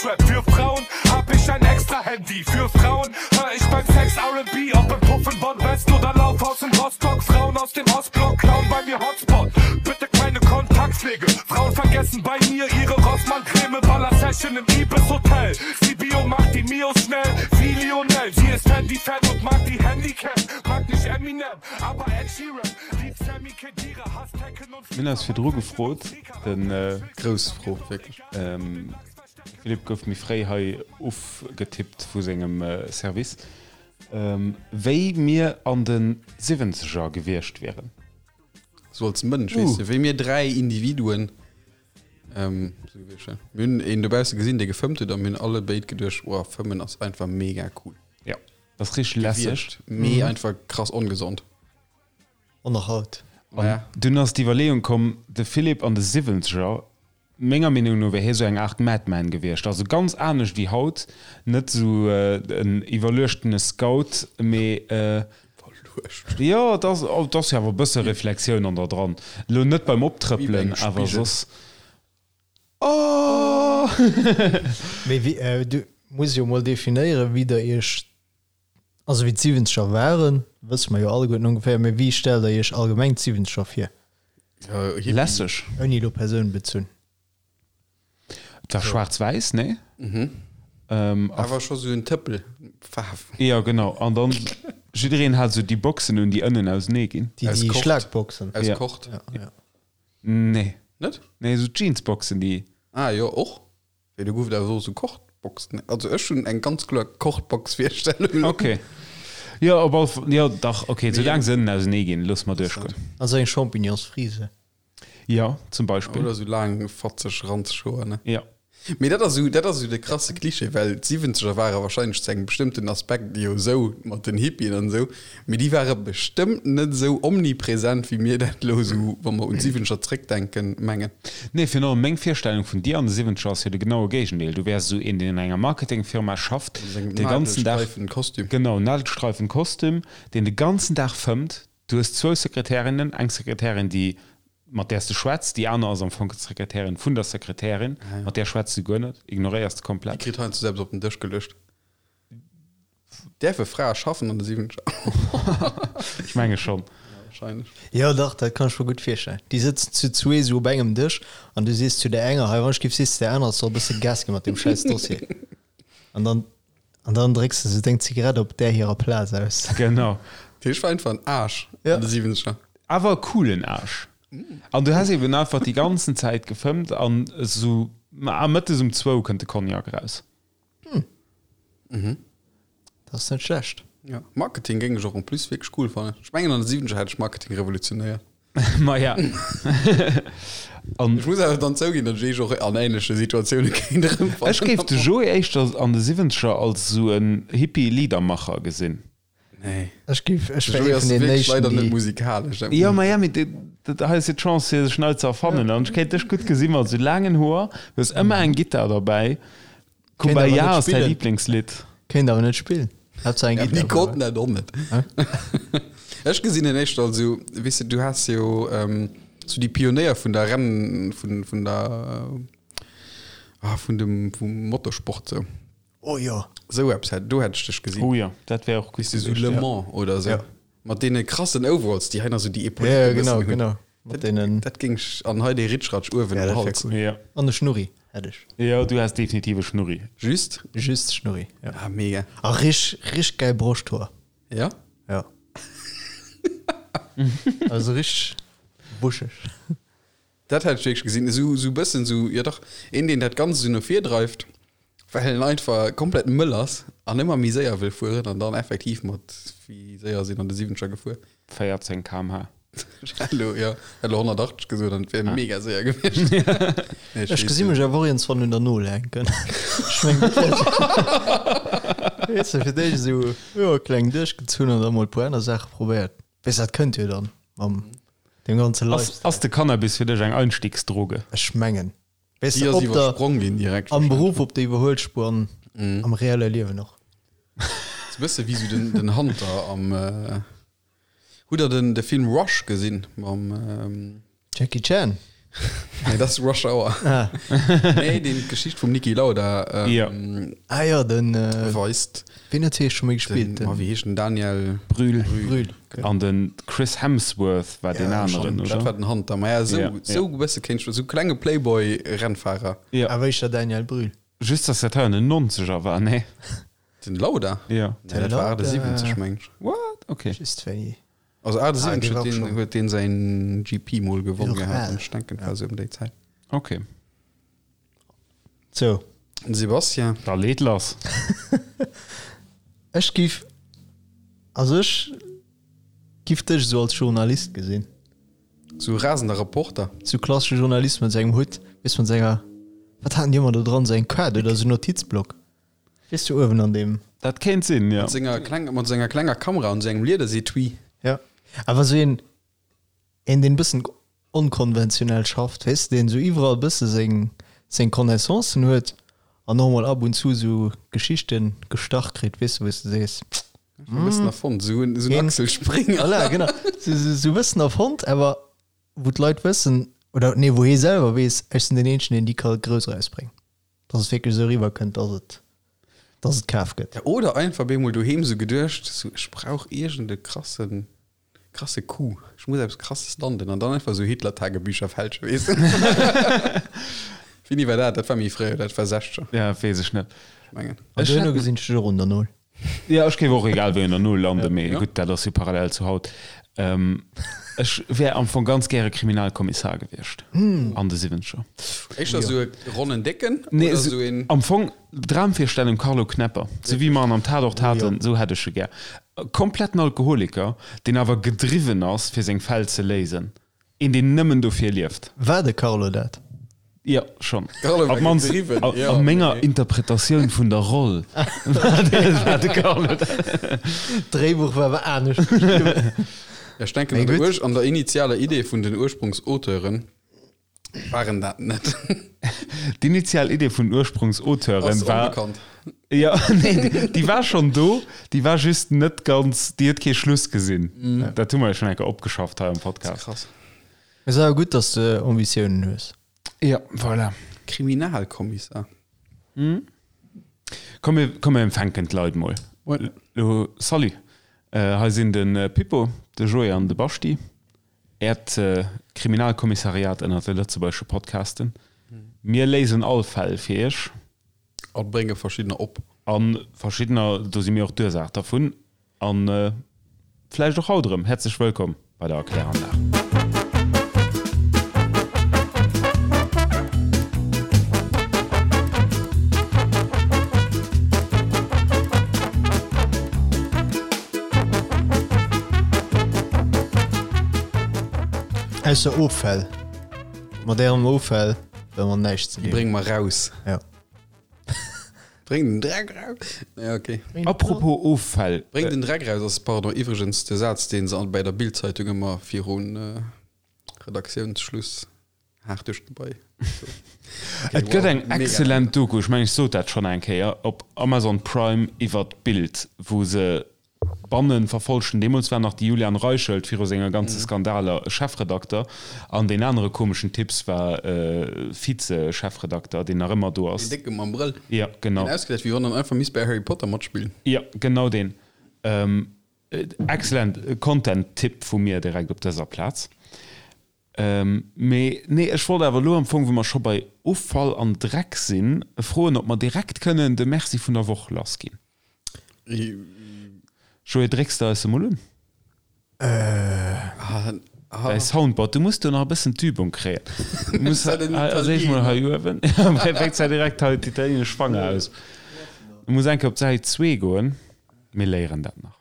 Deutschrap. Für Frauen hab ich ein extra Handy. Für Frauen hör ich beim Sex R&B. Ob im Puff in Bonn-West oder Laufhaus in Rostock. Frauen aus dem Ostblock klauen bei mir Hotspot. Bitte keine Kontaktpflege. Frauen vergessen bei mir ihre Rossmann-Creme. Baller-Session im Ibis Hotel. Sibiu macht die Mios schnell wie Lionel. Sie ist Handy-Fan und mag die Handycam. Mag nicht Eminem, aber Ed Sheeran. Liebt Sami Khedira, hasst Tekken und Mir hunn eis virdru gefrot, den Grouss Fro, wierklech. Philippe gouf méi fréi hei ufgetippt vu sengem Service, wéi mir an de Siwwenzeger gewiescht wieren. Sou als Mënsch, weess de, wéi mir 3 Individuen. Sou gewiescht, ja. Mir hunn een dobausse gesinn, dee gefëmmt huet a mir hunn alle béid geduecht, Wow, fëmmen ass einfach mega cool. Ja, dat ass richteg lässeg. Gewiescht, mee einfach krass ongesond. An nach haut. An dunn ass d'Iwwerleeung komm, de Philippe an de Siwwenzeger, menger Meenung no wär hie sou eng Aart Madman gewiescht. Also ganz anescht wéi haut, net sou en iwwerluechtene Scout, mee Iwwerluecht? Jo, et ass, et ass jo awer e bësse Reflexioun an der dran. Elo net beim Wéi bei Optrëppelen, engem awer Spigel. soss. Oh! Mee wéi, du muss jo mol definéieren, wéi der iech Also wéi d'Siwwenzeger waren, wësse mer jo alleguerten ongeféier, mee wéi stellt der iech allgemeng d'Siwwenzeger vir? Lässeg. Ouni elo persounbezunn. Et war schwaarz-wäiss, nee? Mhm. Awer scho sou en Tëppel Faarf. Jo, genau. An dann jiddereen hat sou déi Boxen un, déi ënnen ausenee ginn. Déi Aus Kord. Schlagboxen. Aus Kord. Ja, ja. Nee. Net? Nee, sou Jeansboxen, déi. Ah jo, och. Wéi do gouf et awer och sou Kordboxen. Also ech hunn eng ganz kloer Kordbox-Virstellung. Ok. Jo, op all Fall, jo dach, ok, soulaang se ënnen ausenee ginn, loosse mer duerchgoen. Also eng Champignonsfrise. Jo, zum Beispill. Oder sou laang, fatzeg, ranzeg Hoer, ne? Jo. Mee dat ass sou, dat ass sou de krasse Klischee, well d'Siwwenzeger ware wahrscheinlech zu engem bestëmmten Aspekt jo sou mat den Hippien an esou, Mee déi ware bestëmmt net esou omnipresent, wéi mir dat elo esou, wa mer un d'Siwwenzeger zréckdenken, mengen. Nee, virun allem meng Virstellung vun dir an de Siwwenzeger ass jo de genaue Géigendeel. Du wäers esou een, deen an enger Marketingfirma schafft, de ganzen Dag. Nadelstreifenkostüm. Genau, Nadelstreifenkostüm, deen de ganzen Dag fëmmt. Du hues zwou Sekretärinnen, eng Sekretärin, déi, mat där s de schwätz, déi aner ass am Fong d'Sekretärin vun der Sekretärin, mat där schwätz de guer net, ignoréiers de Déi komplett. kritt heiansdo selbst op den Dësch geluecht. Däerfe Frae schaffen an de 70er? Ech menge schonn. Ja, wahrscheinlech. Jo dach, dat kann ech mer gutt virstellen. Déi sëtzen zu zwee sou op engem Dësch an du sees zu der enger, hei wann ech giff, sees de der anerer, soll e bësse Gas gi mat deem schäiss Dossier. An dann, an dann drécks de sou deng Zigarett op där hirer Plaz aus. Genau. Dat heescht, war einfach en Aarsch Ja. an de 70er. Awer e coolen Aarsch. An du häss eben einfach déi ganzen Zäit gefëmmt an esou, ma mëttes um zwou kënnt de Cognac eraus. Hm. Mhm. Dat ass net schlecht. Ja, Marketing géing ech och en plus wierklech cool fannen. Ech mengen an de 70er hätt ech Marketing revolutionéiert. Maja. An Ech muss awer dann zouginn, datt ech eech och an ähnleche Situatioune kéint erëmfannen. ech géif de Joé éischter an de 70er als esou en Hippie-Liedermacher gesinn. Nee. Ech géif, ech De wär Joé ee ass vun den wierklech éischten, leider net déi. musikalesch. Dat Jo, muss ma ja, mee dat hei ass jo d'Chance fir sech nei ze erfannen. An ech kéint dech gutt gesi mat esou laangen Hoer, du hues ëmmer eng Gittar derbäi. Kéint awer Kumbaya net ass däi spillen. Liblingslidd. Kéint awer net spillen. Haaptsaach eng Ja, Gittar déi konnten derbäi. dat och net. Ech gesinn en éischter als esou, weess de, du has jo esou déi Pionéier vun der Renn, vun, vun der, ah, vun dem, vum Motorsport sou. Oh jo. Sou eppes hätt, do hätt ech dech gesinn. Oh jo, dat wär och gutt Weess de, sou gewiescht, Le ja. Mans oder sou. Ja. Mat deene krassen Overalls, déi hei nach sou déi Ja, Epauletten ja, e genau, bëssen hunn. genau. Mat deenen. Dat géing ech, an hei dee Ritschratsch uewen Ja, um dat wär Hals. cool. Ja. An e Schnurri hätt ech. Jo, du häss definitiv e Schnurri. Just? Just Schnurri, ja. Ah, mega. A rich, rich geil Broschthoer. Ja? Ja. Also rich buscheg. Dat hätt ech wierklech gesinn. Esou, esou bëssen esou, jo dach, een deen dat Ganzt esou no vir dreift, well en einfach komplett mëll ass an ëmmer méi séier wëll fueren an dann effektiv mat, wéi séier sinn an de Siwwenzeger gefuer? 14 km/h. Ech hätt elo, jo, hätt elo 180 gesot an et wär mega séier gewiescht. Nee, Ech gesi mech awer och iergendswann un der Nol hänken. Ech meng, dat wär Weess de, fir d'éischt esou, jo, kleng duerchgezunn an da mol e puer aner Saache probéiert. Weess, dat kënnt jo dann mam Dem ganze Ass, Lifestyle. ass de Cannabis fir dech eng Einstiegsdroge? Ech mengen. Weess Déi de, ass op der, iwwersprong ginn direkt am wahrscheinlech. Beruff op der Iwwerhuelspuer an am reelle Liewen och. Ass e bësse wéi sou den, den Hunter am, Hutt der den, de Film Rush gesinn mam, Jackie Chan? Nee, dat ass Rush Hour. Ah. Nee, deen d'Geschicht vum Niki Lauda ähm, Ja. Ah ja, den äh, weist. wien huet hie scho méi gespillt? Den, oh, wéi heescht den Daniel Brühl. Brühl. An den Chris Hemsworth war deen Ja, aneren, Dat war oder? den Hunter. Ma ja, sou, Ja, sou e bësse kéint ech, sou klenge Playboy-Rennfahrer. Ja. Awer éischter Daniel Brühl. Just, dass dat hei an den 90er war, nee? Den Lauda? Ja. Nee, dat war Lauda. 78, meng ech. What? Okay. Just wéi. Also 78 Ah, dee war huet deen, schon. huet deen säin GP mol gewonnen Och gehat. al. Ech denken, war sou ëm déi Zäit. Okay. Sou. Den Sebastien. Da leet lass. Ech giff, also ech giff dech esou als Journalist gesinn. Sou rasender Reporter. Sou klassesche Journalist mat sengem Hutt, weess mat senger, wat haten déi ëmmer do dran, sou eng Kaart oder sou Notizblock, weess du, uewen an deem. Dat kéint sinn, jo. Mat senger kleng, mat senger klenger Kamera an sengem Liedersetui. Ja, awer sou een, een deen bëssen onkonventionell schafft, weess de, deen sou iwwerall bësse seng, seng Connaissancen huet an och mol ab und zu sou Geschichten gestach kritt, weess de, wou s de sees, E bëssen erfonnt, sou en, sou en Een- Axel Springer. Voilà, genau, sou, sou, sou bëssen erfonnt, awer wou d'Leit wëssen, oder nee, wou hie selwer weess, ech sinn deen eenzegen, deen déi ka grouss erausbréngen, dass et wierklech esou eriwwer kënnt, dass et, dass et kaf gëtt. Ja, oder einfach bemol doheem sou geduecht, sou ech brauch iergend e krassen, krasse Coup, ech muss eppes krasses landen an dann einfach sou Hitler-Tagebücher fälschen, weess de. Wéini war dat? Dat war méi fréi, dat war 60er, Ja, weess ech net. ech mengen. An Ech duerno hätt- gesinn ech dech och un der Null. Ja, ech géif och egal wéi un der Null landen, mee Ja. gutt, dat ass jo parallel zu haut. Ähm, ech wär am Fong ganz gäre Kriminalkommissar gewiescht an de Siwwenzeger. Éischter sou e ronnen Décken Nee, oder sou, sou een. am Fong Dramvirstellung Carlo Knepper, sou wéi mer en am Tatort haten, sou hätt ech e gär. E kompletten Alkoholiker, deen awer gedriwwen ass, fir seng Fäll ze léisen. Een, deen nëmmen dofir lieft. War de Carlo dat? Jo, schonn. Carlo war Op d'mannst gedriwwen, a, jo. a menger Interpretatioun vun der Roll war de, war de Carlo dat. D'Dréibuch war awer anescht geschriwwen. Ech denken, Mee an der, gutt. Ur an der initialer Idee vun den Ursprungsauteuren waren dat net. D'initial Idee vun den Ursprungsauteuren Ass war. onbekannt. Ja, nee, déi, déi war schonn do, déi war just net ganz, déi huet kee Schluss gesinn. Dat hu mer jo schonn eng Kéier opgeschafft hei am Podcast. Krass. Mee ass awer gutt, dass de Ambitiounen hues. Ja, voilà. Kriminalkommissar. Komm, mir, komm, mir empfänken d'Leit mol. Moin. Lo, salut. Äh, hei sinn de Pippo, de Joé an de Baschti. Äert Kriminalkommissariat ënnert de lëtzebuergesche Podcasten. Mir léisen all Fäll fir iech. A brénge verschiddener op. A verschiddener, do si mir och d'Ursaach dervun. A vläicht och haut erëm. Häerzlech wëllkomm bei der Erkläranlag. Ausser Offäll. Mat ärem Offäll wëlle mer näischt ze Déi dinn. brénge mer raus. Ja. Bréng den Dreck raus. Ja, okay. Apropos Offäll. Bréng den Dreck raus ass, pardon, iwwregens de Saz, dee se bei der Bild-Zeitung ëmmer virun Redaktiounsschluss haart duerch d'Gebai. Et gëtt eng excellent Doku, ech mengen ech sot dat schonn eng Kéier, op Amazon Prime iwwert d'Bild, wou se Bannen verfolgten. Deemools war nach de Julian Reichelt viru senger ganze Skandaler Chefredakter an deen anere komeschen Typs war Vize-Chefredakter, deen nach ëmmer do ass. Deen Décke mam Brëll. Ja, genau. Deen ausgesäit, wéi wann en einfach misst bei Harry Potter matspillen. Ja, genau deen. Excellent Content-Tipp vu mir direkt op dëser Plaz. Mee nee, ech wollt awer elo am Fong, wou mer scho bei Offall an Dreck sinn, froen, ob mer direkt kënnen de Merci vun der Woch lassginn. Joé, drécks de eis emol un? Däi Soundboard, du muss do nach e bëssen d'Übung kréien. Du muss als éischt mol hei uewen, fänkt se direkt hei d'italienesch Fanger aus. Du muss eng Kéier op d'Säit zwee goen, mir léieren dat nach.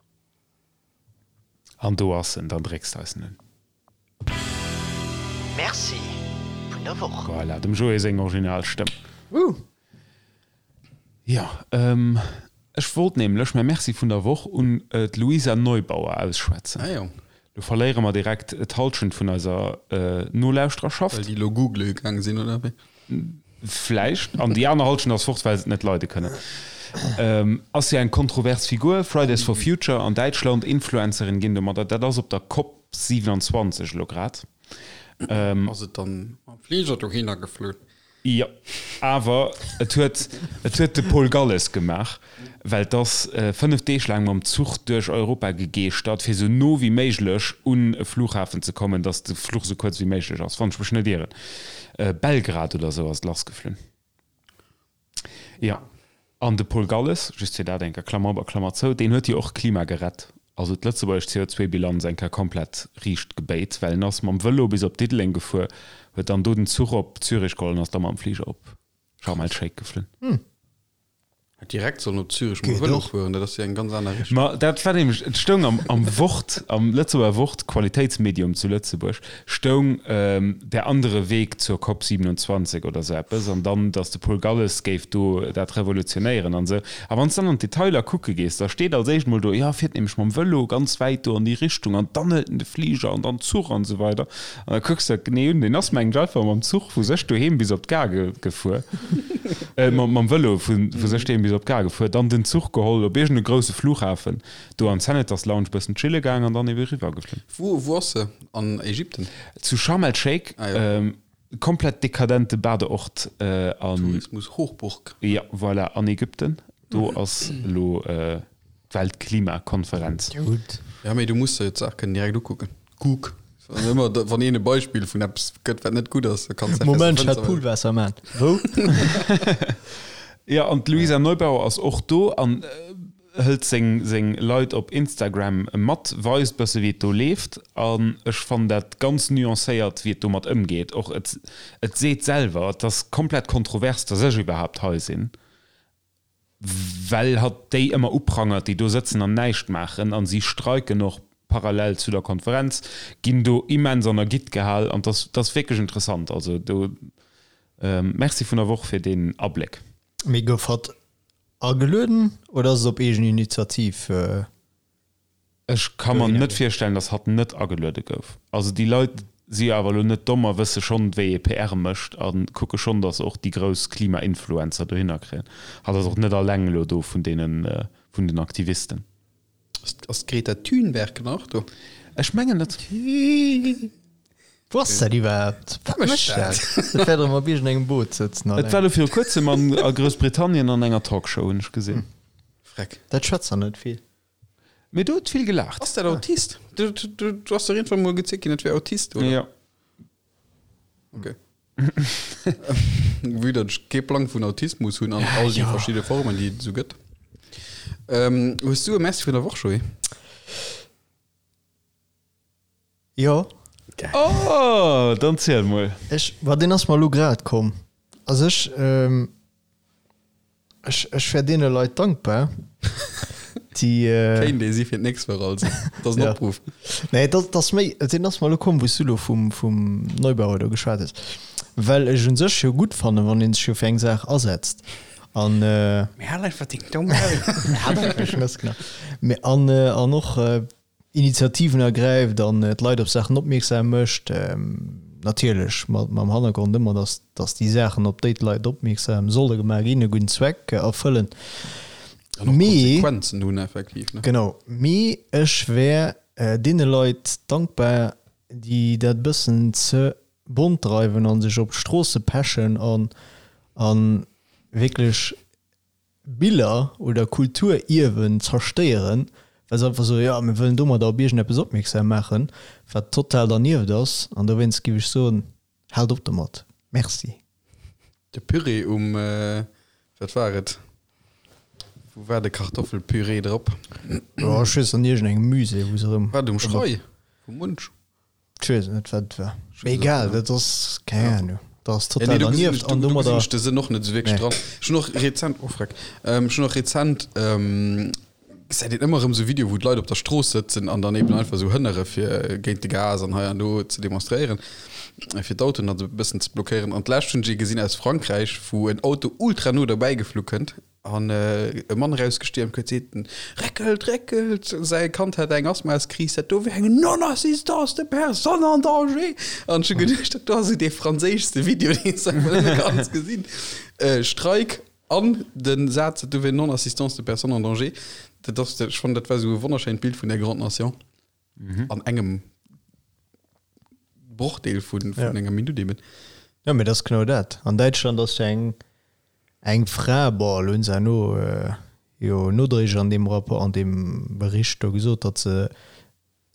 An do ass en, dann drécks de eis en un. Merci vun der Woch. Voilà, dem Joé seng Originalstëmm. Woo! Jo, ech wollt nämlech mäi Merci vun der Woch un d'Luisa Neubauer ausschwätzen. Ah jo. Lo verléiere mer direkt d'Halschent vun eiser Nolauschtererschaft. Well déi lo googele gaang sinn, oder wéi? Vläicht. An déi aner Halschent ass fort, well se et net leide kënnen. Ass jo eng kontrovers Figur, Fridays for Future an Däitschland, Influencerin ginn domadder. Dat ass op der Cop 27 elo grad. Ass et dann mam Fliger dohinner geflunn? Jo, awer et huet, et huet de Paul Galles gemaach, well 't ass 5 Deeg laang mam Zuch duerch Europa gegeeschtert, fir sou no wéi méiglech un e Flughafen ze kommen, datt de Fluch sou kuerz wéi méiglech ass, wann ech mech net ieren. Belgrad oder sou ass et lassgeflunn. Jo, an de Paul Galles, just fir dat eng Kéier, Klammer op a Klammer zou, deen huet jo och d'Klima gerett, also d'lëtzebuergesch CO2-Bilanz eng Kéier komplett riicht gebéit, well en ass mam Vëlo bis op Diddeleng gefuer, huet dann do den Zuch op Zürich geholl an ass da mam Fliger op Sharm el-Sheikh geflunn. Hätt direkt sollen op Zürich mam Vëlo fueren, dat ass jo eng ganz aner Richtung. Ma dat war nämlech, et stoung am am Wort, am Lëtzebuerger Wort, Qualitéitsmedium zu Lëtzebuerg, stoung Der andere Weg zur Cop 27 oder sou eppes, an dann, datt de Paul Galles géif do dat revolutionéieren an esou. A wann s dann an d'Detailer kucke gees, da steet als éischt mol do, jo, fiert nämlech mam Vëlo ganz wäit do an déi Richtung an dann hëlt en de Fliger an dann Zuch an esou weider. An da kucks de dat genee un, deen ass mengen ech einfach mam Zuch vu sech doheem bis op d'Gare gefuer, mam Vëlo vu sech doheem bis op d'Gare gefuer, dann den Zuch geholl op iergend e grousse Flughafen, do an d'Senators Lounge bëssen chille gaang an dann ebe riwwer geflunn. Wou wou ass se? An Ägypten? Zu Sharm el Sheikh, ah, ja. ähm, komplett dekadente Badeort äh, an Tourismus Hochburg. Ja, voilà, an Ägypten. Do ass elo äh, d'Weltklimakonferenz. Gutt. Ja, mee du muss der jo d'Saach kënnen direkt ukucken. Kuck. Wann ëmmer, wann een e Beispill vun eppes gëtt, wat net gutt ass, da kanns du Moment, ech hat Poolwaasser man. Wou? Ja, an d'Luisa Neubauer ass och do an hëlt seng seng Leit op Instagram mat, weist bësse wéi et do leeft an ech fannen dat ganz nuancéiert wéi et domat ëmgeet. Och et et seet selwer, et ass komplett kontrovers, datt ech iwwerhaapt hei sinn, well hatt déi ëmmer uprangert, déi do sëtzen an näischt maachen an si streiken och parallel zu der Konferenz, ginn do immens an der Gitt gehal an et ass wierklech interessant. Also do Merci vun der Woch fir deen Abléck. Mee gouf hatt Agelueden oder ass et op eegen Initiativ? Ech ka mer net virstellen, datt hatt net ageluede gouf. Also déi Leit si jo awer elo net domm a wësse schonn, wéi ee PR mécht a kucke schonn, datt se och déi grouss Klima-Influencer dohinner kréien. Hatt ass och net alleng elo do vun deenen, vun den Aktivisten. Ass d'Greta Thunberg nach do? Ech mengen net. Wou ass dat iwwerhaapt? Wat mécht dat? Dat wäert erëm op iergendengem Boot sëtzen. Et war elo viru kuerzem an a Groussbritannien an enger Talkshow, hunn ech gesinn. Freck. Dat schwätzt der net vill. Mee do huet vill gelaacht. Ass dat Autist? Du ass der iergendwann mol gezielt ginn, dat wär Autist, oder? Jo. Okay. Vue datt ech kee Plang vun Autismus hunn an all déi verschidde Formen, déi et esou gëtt. Ähm, hues du e Merci vun der Woch, Joé? Jo. Oh, dann ziel mol. Ech, ma deen ass mer elo grad komm. Also ech, ech, ech wär deene Leit dankbar, déi. Kéint ee si fir d'nächst Woch also. Dat ass en Opruff. Nee, dat ass méi, deen ass mer elo komm, wou s du elo vum, vum Neubauer do geschwat hues. Well ech un sech jo gutt fannen, wann ee sech jo fir eng Saach asetzt. An. Mee hal einfach deng domm Maul. Hal einfach deng Schnëss, genau. Mee an, an och. Initiativen ergräift an d'Leit op Saachen opmierksam mécht, natierlech mam Hannergrond ëmmer, datt datt déi Saachen, op déi d'Leit opmierksam solle gemaach ginn, e gudden Zweck erfëllen. An och Konsequenzen hunn effektiv, ne? Genau. Mee ech wär deene Leit dankbar, déi dat e bëssen ze bont dreiwen a sech op d'Stroosse pechen an a wierklech Biller oder Kulturierwen zerstéieren, well se einfach soen, jo, mir wëllen domadder op iergendeppes opmierksam maachen, wat total dernieft ass. An dowéinst géif ech soen, Haalt op domat. Merci. De Püree um, wat war et? Wou war de Kartoffelpüree drop? Jo, ech weess, an iergendengem Musée, wou se erëm. War et um Schrei vum Munch? Ech weess net wat et war. Mee egal, dat ass keng Ahnung. Dat ass total dernieft an domadder. Do gesinn ech de Sënn och net esou wierklech dran. Ech hunn och rezent, oh freck, ech hunn och rezent, gesäit een ëmmer erëm esou Videoe wou d'Leit op der Strooss sëtzen an dann eben einfach esou hënnere fir géint de Gas an hei an do ze demonstréieren, fir d'Autoen dann esou e bëssen ze blockéieren. An d'lescht hunn ech ee gesinn aus Frankräich, wou en Auto ultra no derbäi geflu kënnt An e Mann erausgestiermt huet, seet en, Réckelt, réckelt! Säi Kand hätt eng Asthmaskris, dat do wär eng Non-assistance de personne en danger! An ech hu geduecht, dat do ass esou dee franséischste Video, deen s de einfach nëmme kanns gesinn. Streik an de Saz, dat do wär Non-assistance de personne en danger. Dat ass, ech fannen, dat war esou e wonnerschéint Bild vun der Grande Nation an engem. Brochdeel vun enger Minutt eben. Jo, mee dat ass genau dat. An Däitschland ass jo eng eng Fra, bon, elo hunn se herno jo nodréiglech an deem Rapport, an deem Bericht do gesot, datt se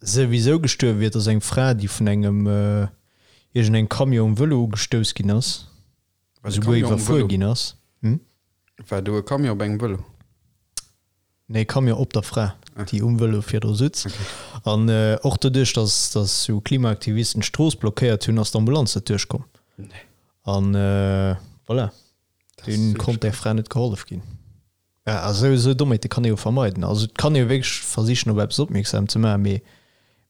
souwisou gestuerwe wier. Et ass eng Fra, déi vun engem iergendengem Camion um Vëlo ugestouss ginn ass, esouguer iwwerfuer ginn ass. Hm? War do e Camion op engem Vëlo? Nee, Camion op der Fra, déi um Vëlo virdru sutz. An och doduerch, datt datt sou Klimaaktivisten d'Strooss blockéiert hunn, ass d'Ambulanz net duerchkomm. An voilà, dunn konnt där Fra net gehollef ginn. Ja, a sou sou Dommheete kann ee jo vermeiden. Also et kann ee jo wierklech versichen, op eppes opmierksam ze maachen, mee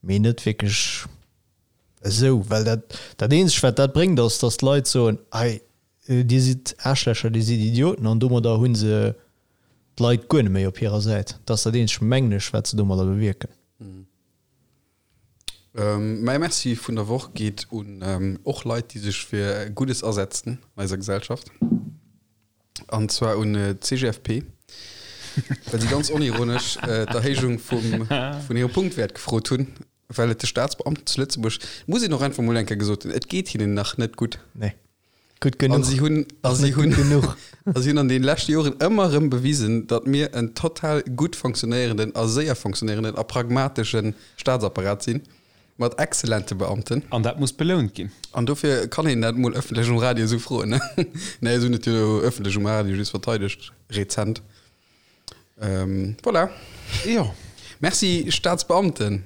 mee net wierklech esou, well dat dat eenzegt, wat dat bréngt, ass, datt d'Leit soen, Hei, dir sidd Aarschlächer, dir sidd Idioten, an domadder hu se d'Leit guer net méi op hirer Säit. Dat ass dat eenzegt, mengen ech, wat se domadder bewierken. Mäi Merci vun der Woch geet un och Leit, déi sech fir Guddes asetzen an eiser Gesellschaft. An zwar un d'CGFP, well si ganz onironesch d'Erhéijung vum vun hirem Punktwäert gefrot hunn, well et de Staatsbeamten zu Lëtzebuerg, muss een och einfach mol eng Kéier gesot hunn, et geet hinnen nach net gutt. Nee. Gutt genuch. An si hunn, a si hunn, genuch. a si hunn an den leschte Joren ëmmer erëm bewisen, datt mir en total gutt fonctionnéierenden a séier fonctionnéierenden a pragmatesche Staatsapparat sinn, mat exzellente Beamten. An dat muss belount ginn. An dofir kann een dat mol ëffentlech um Radio esou froen, ne? Nee, ech hunn et jo ëffentlech um Radio just verteidegt, rezent. Ähm, voilà. Jo. Merci Staatsbeamten.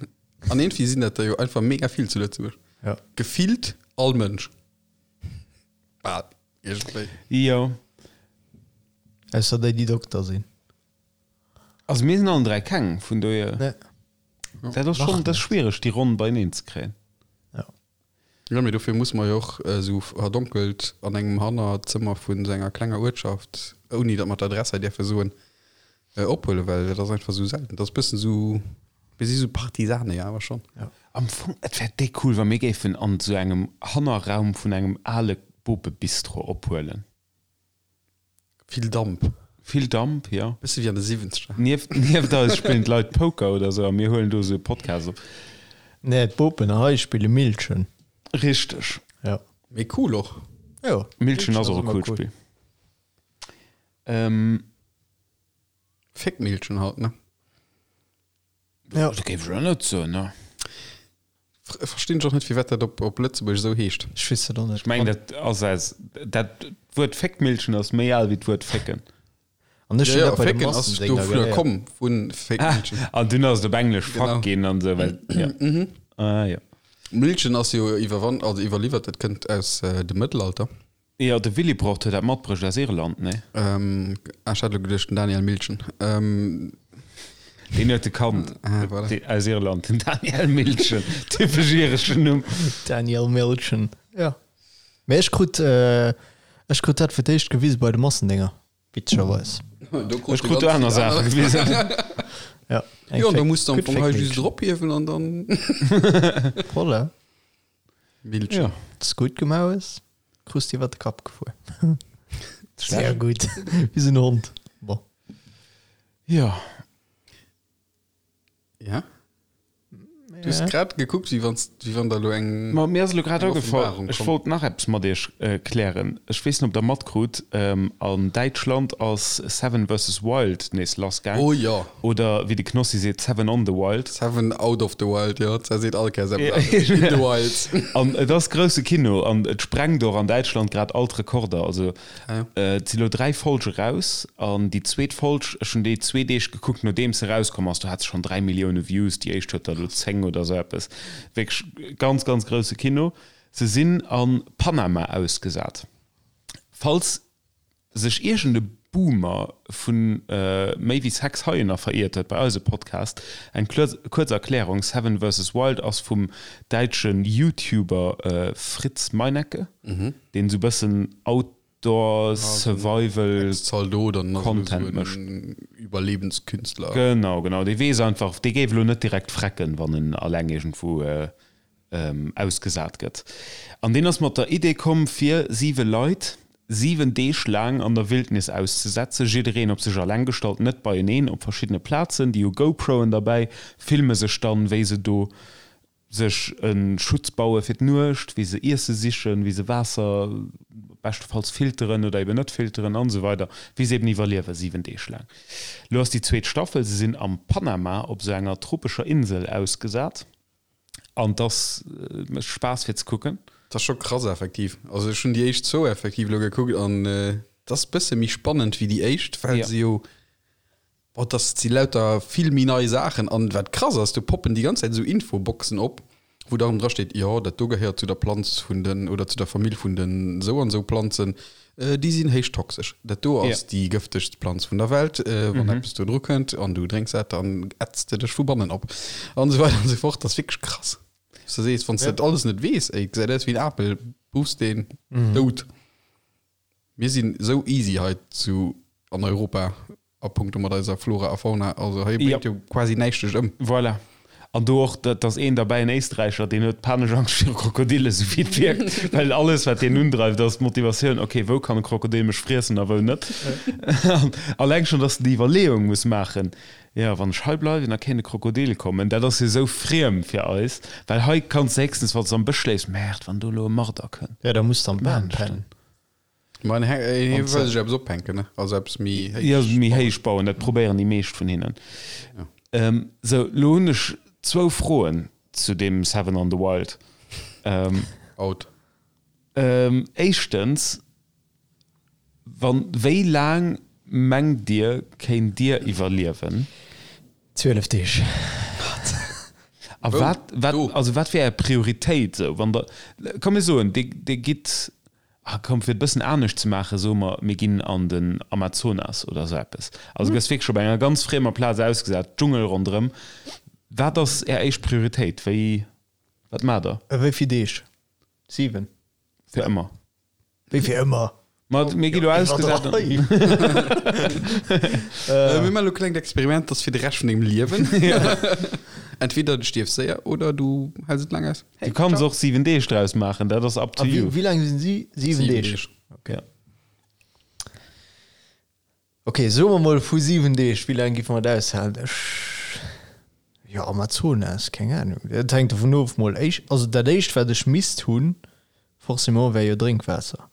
An iergendwéi sinn dat der jo einfach mega vill zu Lëtzebuerg. Ja. Gefillt all Mënsch. Bal, iergendwéi. Jo. Ausser déi, déi Dokter sinn. Also mir sinn allen 3 keng, vun dohier. Nee. Dat ass schonn, dat ass schwiereg, déi Ronn beieneen ze kréien. Ja. Jo, mee dofir musse mer jo och esou verdonkelt an engem Hannerzëmmer vun esou enger klenger Uertschaft, ouni datt mer d'Adress hei däerfe soen, Ophuelen, well dat ass einfach esou selten. Dat ass bëssen esou, mir si sou Partisane jo awer schonn. Am Fong, et wär déck cool, wa mir géifen an esou engem Hannerraum vun engem ale Bopebistro ophuelen. Vill Damp. Vill Damp, jo. Bësse wéi an de Siwwenzeger. Nieft, nieft eis spillen d'Leit Poker oder esou a mir huelen do esou e Podcast op. Nee, d'Bopen hei spille Millchen. Richteg. Jo. Mee cool och. Jo. Millchen ass och e coolt Spill. Ähm. Féckmillchen halt, ne? Ja. Dat géif ech elo net soen, ne? Verstinn ech och net, firwat dat op, op Lëtzebuergesch esou heescht. Ech weess dat och net. Ech mengen, dat ass aus, dat Wuert Féckmillchen ass méi al wéi d'Wuert fécken. An ech Ja, hunn ja, dat bei de fécken ass Massendénger dovunner geléiert. komm, vu Féckmillchen. Ah, an dunn ass et op Englesch Genau. Fuck ginn an esou, well, ja. Ah, jo. Millchen ass jo iwwerwann, also iwwerliwwert, dat kënnt aus dem Mëttelalter. Jo, de Willibrord huet dat matbruecht aus Irland, nee? Ähm, ah, ech hat elo geduecht, den Daniel Milchen. Ähm, Deen huet e Kand ah, voilà. dee, aus Irland, den Daniel Milchen. Typesch ireschen Numm. Daniel Milchen, jo. Mee ech krut, ech krut dat fir d'éischt gewise bei de Massendénger, witzegerweis. Ech krut do aner Saache gewisen. Ja, eng Jo, an da Féck, muss du am gutt Fong hei just Féckmilchen. erophiewen an dann. Voilà. Milchen. Ja. Dass gutt gemaach hues, krus de iwwer de Kapp gefuer. Sehr gutt. Wéi sou en Hond. Bon. Ja. Ja. Du hues grad gekuckt, wéi wanns, wéi wann der elo eng. Ma mir ass elo grad eng agefall, Offenbarung ech komm. wollt nach eppes mat iech klären. Ech weess net, ob der matkrut, an Däitschland ass Seven versus Wild nees lassgaang. Oh jo. Oder wéi de Knossi seet, Seven on the Wild. Seven out of the wild, jo, dat seet all Kéiers eppes anescht. In the wild. An et ass grousse Kino an et sprengt och an Däitschland grad all d'Rekorder. Also et si lo 3 Folge raus an déi zweet Folg, ech hunn déi zwee Deeg gekuckt nodeems se rauskomm ass, do hat se schonn 3 Millioune Views, déi éischt huet der elo 10 oder sou eppes. Wierklech ganz, ganz grousse Kino. Se sinn a Panama ausgesat. Falls sech iergend e Boomer vu méi wéi 6 Haien veriert huet bei eise Podcast, eng kuerz Erklärung, Seven versus Wild ass vum däitsche YouTuber Fritz Meinecke, deen esou bëssen Outdoor Survival Content mécht. Iwwerlebenskünstler. Genau, genau, dee weess einfach, dee géif elo net direkt frecken, wann en alleng iergendwou ausgesat gëtt. An deen ass mat der Idee komm, fir siwe Leit 7 Deeg laang an der Wildnis auszesetzen, jiddereen op sech alleng gestallt, net beieneen, op verschiddene Plazen. Déi hu GoProen derbäi, filme sech dann, wéi se do. sech e Schutz baue fir d'Nuecht, wéi se Iesse sichen, wéi se Waasser beschtefalls filteren oder eben net filteren an esou weider, wéi se eben iwwerliewe 7 Deeg laang. Lo ass déi zweet Staffel, se sinn am Panama op esou enger tropescher Insel ausgesat an 't ass, mécht Spaass fir ze kucken. Dat ass scho krass effektiv. Also ech hunn déi éischt zwou effektiv elo gekuckt an et ass bësse méi spannend wéi déi éischt, well se jo Boah, das si lauter vill méi nei Saachen. An wat krass ass, do poppen déi ganz Zäit esou Infoboxen op, wou dann dra steet, jo, dat do gehéiert zu der Planz vun den, oder zu der Famill vun den esou an esou Planzen, déi sinn héich toxesch. Dat do ass déi gëftegst Planz vun der Welt, wann eppes do dru kënnt an du drénks dat, dann ätzt de dech vu bannen op. An esou weider an esou fort. Dat ass wierklech krass. Wou s de sees, wann s de dat alles net weess, ey, gesäit aus wéi en Apel, buffs deen, dout. Mir sinn esou easy hei zu an Europa a punkto mat eiser Flora a Fauna. Also hei bréngt jo quasi näischt dech ëm. Voilà. An do och, dat ass een derbäi, en Éisträicher, deen huet panesch Angscht viru Krokodillen, esou wéi et wierkt, well alles, wat deen undreift, ass d'Motivatioun, ok, wou kann e Krokodil mech friessen a wou net. An alleng schonn, dass en déi Iwwerleeung muss maachen, jo, wann ech hei bleiwen, da kéint e Krokodil kommen. Dat ass jo esou friem fir eis, well hei kanns de héchstens, wann s de am Bësch schléifs, Merde, wann do elo e Marder kënnt. Jo, da muss de am Bam pennen. Ma en hie wëll sech eppes ophänken, ne? Also eppes méi héich. Jo, méi héich bauen, dat probéieren déi meescht vun hinnen. Sou, lo hunn ech zwou Froen zu deem Seven on the Wild. Out. Éischtens, wann, wéi laang mengt Dir, kéint Dir iwwerliewen? 12 Deeg. A wat, wat, also wat wär Är Prioritéit esou, wann Der, komm mir soen, Dir, Dir gitt Ah komm, fir et e bëssen anescht ze maachen, soe mer, mir ginn an den Amazonas oder esou eppes. Also du gëss wierklech op enger ganz friemer Plaz ausgesat, Dschungel ronderëm. Wat ass Är éischt Prioritéit? Wéi, wat maacht Der? A wéi vill Deeg? 7? Fir ëmmer. Wéi fir ëmmer? Ma mir gi lo ausgesat. Mir maachen elo e klengt Experiment, dat ass fir de Rescht vun dengem Liewen. Entweder du stierfs séier oder du häls et laang aus. Du kanns och 7 Deeg draus maachen, dat ass up to you. Wéi laang sinn si? 7 Deeg. Okay. Ok, soe mer mol vu 7 Deeg, wéi laang géife mer et aushalen? Ech, jo, Amazonas, keng Ahnung. Dat hänkt dovun of mol. Éischt, also dat éischt wat ech misst hunn, forcément, wär jo Drénkwaasser.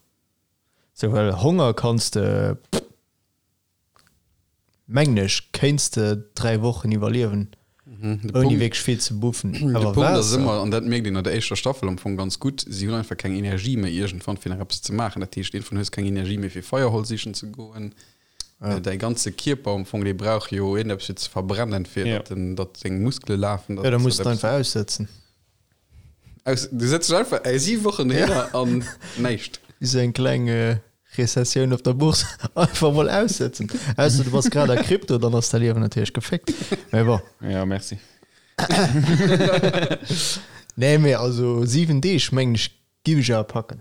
Sou, well Honger kanns de. Mengen ech, kéints de 3 Wochen iwwerliewen, ouni wierklech vill ze buffen. De Punkt ass ëmmer, an dat mierkt een an der éischter Staffel am Fong ganz gutt, si hunn einfach keng Energie méi iergendwann fir nach eppes ze maachen. Dat heescht, iergendwann hues keng Energie méi fir Feierholz sichen ze goen. Däi ganze Kierper am Fong, dee brauch jo iergendeppes fir ze verbrennen, fir datt en, datt seng Muskele lafen. Jo, da muss de einfach aussëtzen. Aus, du sëtz dech einfach ey, siwe Wochen dohinner an näischt. Wéi sou eng kleng Rezessioun op der Bourse, einfach mol aussëtzen. Ausser du bass grad a Krypto, dann ass däi Liewen natierlech geféckt. Mä bon. Ja, merci. Nee, mee also 7 Deeg mengen ech giff ech awer packen.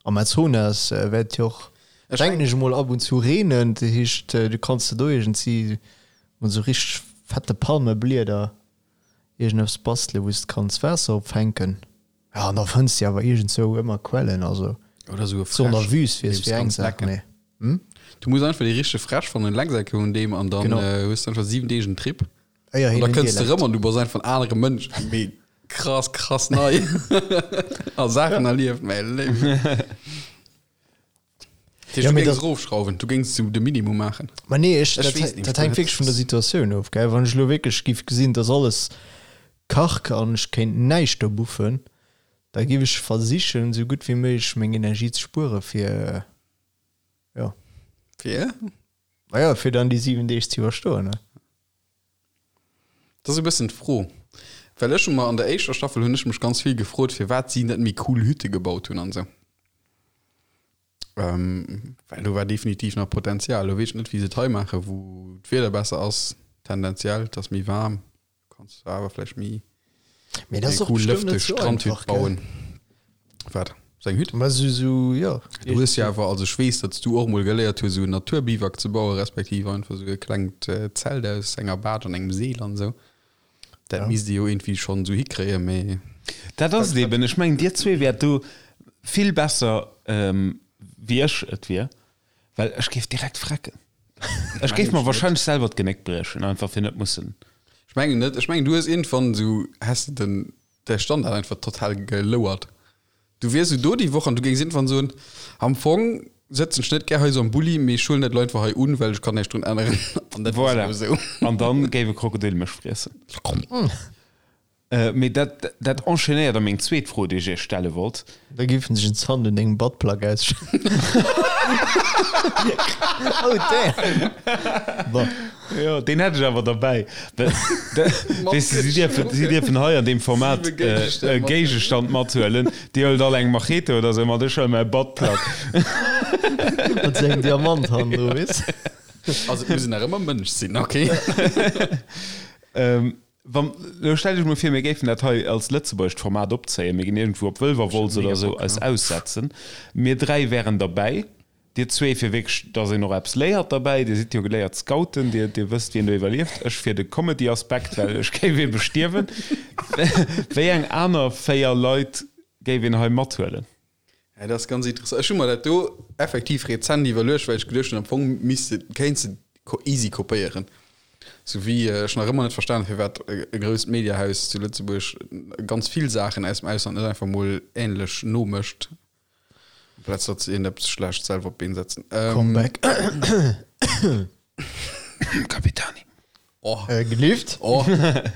Amazonas wäert jo och, denken ech emol, ab und zu reenen. Dat heescht, du kanns de do iergendsi mat esou richteg fette Palmeblieder iergendeppes bastelen, wou s de kanns Waasser opfänken. Jo, an da fënns de awer iergendzou ëmmer Quellen. Also Oder esou e so an der Fräsch, Wüst wier deem es s fir eng kanns Saach, lecken. mee hm? Du muss einfach déi richteg Fräsch fannen, Lecksäcke un deem an dann Genau. hues de einfach 7 Deeg en Trip. Éier An hien da en kënns de Dialekt. rëm an du bass einfach en anere Mënsch. Mee krass, krass nei. A Saachen erlieft, mäi Léiwen. Dat heescht, Ja, du mee géings dat- erofschrauwen, du géings sou de Minimum maachen. Ma nee, ech, Ech dat, weess nicht, dat hänkt wierklech vun der Situatioun of, gell. Wann ech elo wierklech giff gesinn, dass alles karg an ech kéint näischt do buffen, da giff ech versichen, sou gutt wéi méiglech meng Energie ze spuere fir, jo. Fir? Maja, fir dann déi 7 Deeg ze iwwerstoen, ne. Dat ass e bëssen d'Fro. Well ech hu mer an der éischter Staffel hunn ech mech ganz vill gefrot, firwat si net méi cool Hütte gebaut hunn an esou. Ähm, well do war definitiv nach Potenzial. Lo weess ech net, wéi se et hei maachen, wou d'Wieder besser ass, tendenziell, et ass méi waarm. Kanns du awer vläicht méi Mee dat ass eng och cool bestëmmt net lëfteg sou Strandhütt einfach, gell? bauen. Wat? Sou eng Hütt? Ma sou, sou, jo. Du hues jo awer, also ech weess, datt s du och mol geléiert hues, sou en Naturbiwak ze bauen, respektiv einfach sou e klengt Zelt aus enger Baatsch an engem Seel an esou. Dat Ja. misst ee jo iergendwéi schonn sou hikréien, mee. Dat ass et eben. Ech mengen, dir zwee wäert do vill besser wéi ech et wier. Well ech géif direkt frecken. Ech géif mer wahrscheinlech selwer d'Genéck briechen, einfach fir net mussen. Ech mengen net. Ech mengen, du hues iergendwann esou, häss de den. Däi Standard einfach total gelouert. Du wiers esou do déi Woch an du géings iergendwann soen, Am Fong sëtzen ech net gär hei esou am Bulli, mee ech huelen dat elo einfach hei un, well ech kann näischt drun änneren. An dat ass Voilà. elo esou. An dann géif e Krokodil mech friessen. Mee dat, dat enchaînéiert a meng zweet Fro, déi ech iech stelle wollt. Da géif en sech en Zant un dengem Buttplug ausschneiden. Oh damn! Bon. Jo, deen hätt ech awer derbäi. Weess de, si dierfen, si dierfen hei an deem Format e Géigestand mathuelen. Dir huelt all eng Machete oder sou mat, ech huele mäi Buttplug. Mat sou engem Diamant hannendru, weess de. Also et muss een nach ëmmer Mënsch sinn, ok? Wann, elo stellt iech mol vir, mir géifen dat hei als lëtzebuergescht Format opzéien, mir ginn iergendwou op Wëlwerwolz oder esou eis aussetzen, mir 3 wären derbäi, dir zwee fir wierklech, dass een och eppes léiert derbäi, dir sidd jo geléiert Scouten, dir, dir wësst wien do iwwerlieft, ech fir de Comedy-Aspekt, well ech géif ebe stierwen. Wéi eng aner 4 Leit géif een hei mathuelen? Ja, dat ass ganz interessant. Ech hu mer dat do effektiv rezent iwwerluecht, well ech geduecht hunn, am Fong misst de, kéints de easy kopéieren. Sou wéi ech nach ëmmer net verstan hunn, firwat e grousst Mediahaus zu Lëtzebuerg ganz vill Saachen aus dem Ausland net einfach mol änlech nomécht, amplaz datt se iergendeppes schlecht selwer op d'Been setzen. Comeback. Capitani. Oh. Gelift. Oh,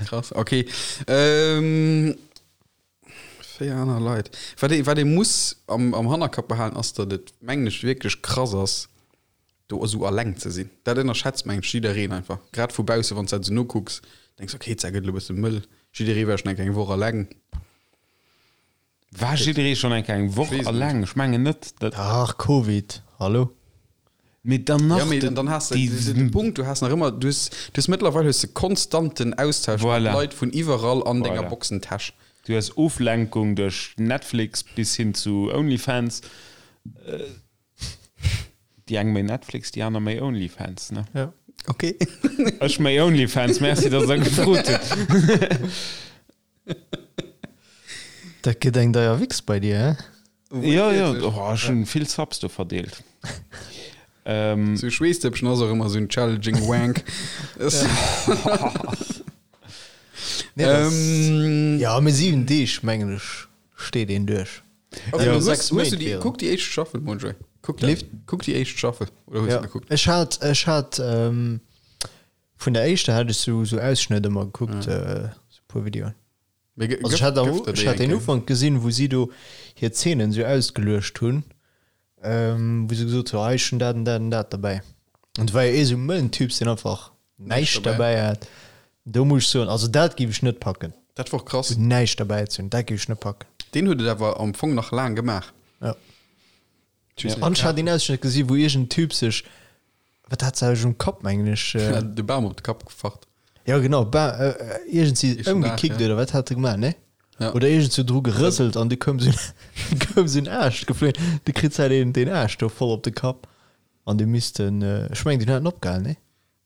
krass, okay. 4 aner Leit. Wat ee, wat ee muss am, am Hannerkapp behalen, ass, datt et, mengen ech, wierklech krass ass, do esou alleng ze sinn. Dat ënnerschätzt, mengen ech, jiddereen einfach. Grad vu bausse, wann s de dat esou nokucks, denks, okay, d'Sa gëtt elo e bësse mëll. Jidderee war schonn eng Kéier eng Woch alleng. War jidderee schonn eng Kéier eng Woch Ech weess et net. alleng? Ech mengen net. Dat. Ach, Covid, hallo? Mee dann nach Ja, mee dann has de déi. de Punkt, du has nach ëmmer, du hues, du hues mëttlerweil hues de konstanten Austausch mat Voilà. Leit vun iwwerall an denger Voilà. Boxentäsch. Du hues Oflenkung duerch Netflix bis hin zu Onlyfans. Déi eng méi Netflix, déi aner méi Onlyfans, ne? Ja. Okay. Ech méi Onlyfans, merci, dass der gefrot hutt. Dat gëtt eng deier Wichs bei dir, hä? Jo, jo, oh, ech hunn vill Subs do verdeelt. Ähm, Sou Schweesstëppchen ass och ëmmer sou en challenging Wank. Nee, das, Ähm, ja, mee 7 Deeg, mengen ech, steet een duerch. Okay, Ja, hues, sechs hues du Méint déi, wären. kuck déi éischt Staffel, Monjoy. Kuck, Lift? kuck déi éischt Staffel. Oder hues du Ja. gekuckt? Ech hat, ech hat, ähm, vun der éischter hat ech sou, sou Ausschnëtt ëmmer gekuckt, äh, sou puer Videoen. Mee Also ech hat, am, ech hat den Ufank gesinn, wou si do hir Zeenen sou ausgeluecht hunn, ähm, wou se gesot hu, hei ech hunn dat an dat an dat derbäi. An do war jo ee sou mëllen Typs, deen einfach näischt derbäi hat. Do muss ech soen, also dat géif ech net packen. Dat war krass. Sou näischt derbäi ze hunn, dat géif ech net packen. Deen huet et awer am Fong nach laang gemaach. Ja. Ech weess net. An ech hat een Ausschnëtt gesi wou iergend Typ sech, wat hat se um Kapp mengen ech, äh, De Bam op de Kapp gefacht. ja genau, Ba äh, iergend si Eschen Dag, ëmgekickt ja. oder wat hat e gemaach, ne? Ja. Oder iergend sou dru gerëselt an du koum sou koum sou en Aascht geflunn, du kritt halt een den Aascht do voll op de Kapp an du misst en, äh, ech mengen den hat en opgehalen, ne?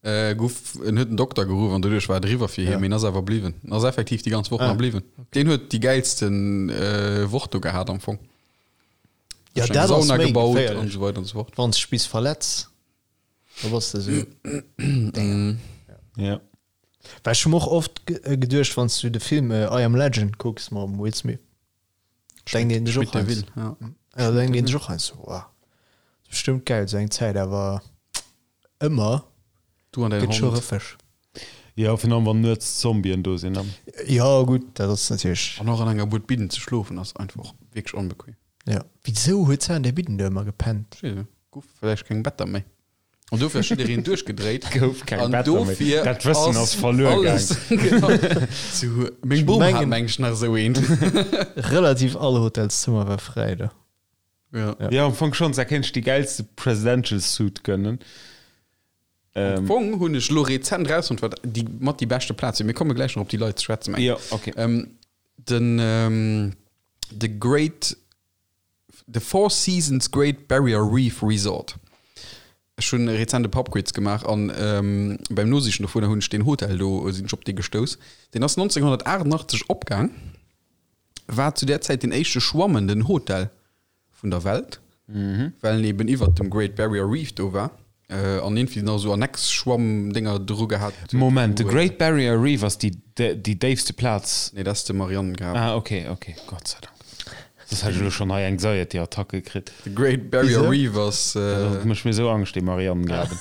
Äh, guff, en huet den Dokter geruff an doduerch war et eriwwer fir hien, Ja. mee en ass awer bliwwen. En ass effektiv déi ganz Woch Ah. nach bliwwen. Deen huet déi gäilsten äh, Woch do gehat am Fong. Ja, Sech eng dat ass Sauna méi gebaut an geféierlech. esou weider an esou fort. Wann s de bis verletz, da bass de sou. Damn. Ja. Well ech hu mer och oft geduecht, wann s du de Film I Am Legend kucks mam Will Smith, denkt een sech och Schmidt de heiansdo, Vil, ja. ja, denkt een sech och heiansdo, wow, ass bestëmmt gäil esou eng Zäit, awer ëmmer Du an däin gëtt scho Hond. rëffeg. Jo, virun allem wann nuets Zombien do sinn. Jo, gutt, dat ass natierlech. An och an enger Bued Bidden ze schlofen ass einfach wierklech onbequem. Ja. Wisou huet se an där Bidden do ëmmer gepennt? Ech weess net, gouf vläicht keng Better méi. An dofir ass jiddereen duerchgedréit. Gouf keng An Better méi. dofir Dat Wëssen ass verluer alles, genau. Zu, meng Bom hat mengen- meng ech nach esou eent. Relativ all Hotelszëmmer war fräi do. Ja. Ja, am Fong schonns, da kéint ech déi gäilste Presidential Suit gönnen. Am Fong hunn ech lo rezent rausfonnt, wat déi mat déi beschte Plaz wier. Mir komme gläich nach op déi Leit ze schwätzen, meng Ja, okay. Ähm, den, ähm, The Great, The Four Seasons Great Barrier Reef Resort. Ech hunn rezent e Pubquiz gemaach an ähm, beim Nosichen dovunner hunn ech deen Hotel do, sinn ech op dee gestouss. Deen ass 1988 opgaang, war zu där Zäit den éischte schwammenden Hotel vun der Welt, well en eben iwwert dem Great Barrier Reef do war. An iergendwéi nach esou Annex-Schwamm-Dénger dru gehat huet. Moment, de Great Barrier Reef ass déi déi déifste Plaz? Nee, dat ass de Marianengraben. Ah, ok, ok, Gott sei Dank. Soss hätt ech elo schonn hei Anxiety-Attacke kritt. De Great Barrier Reef ass. Dat mécht mir esou Angscht, dee Marianengraben.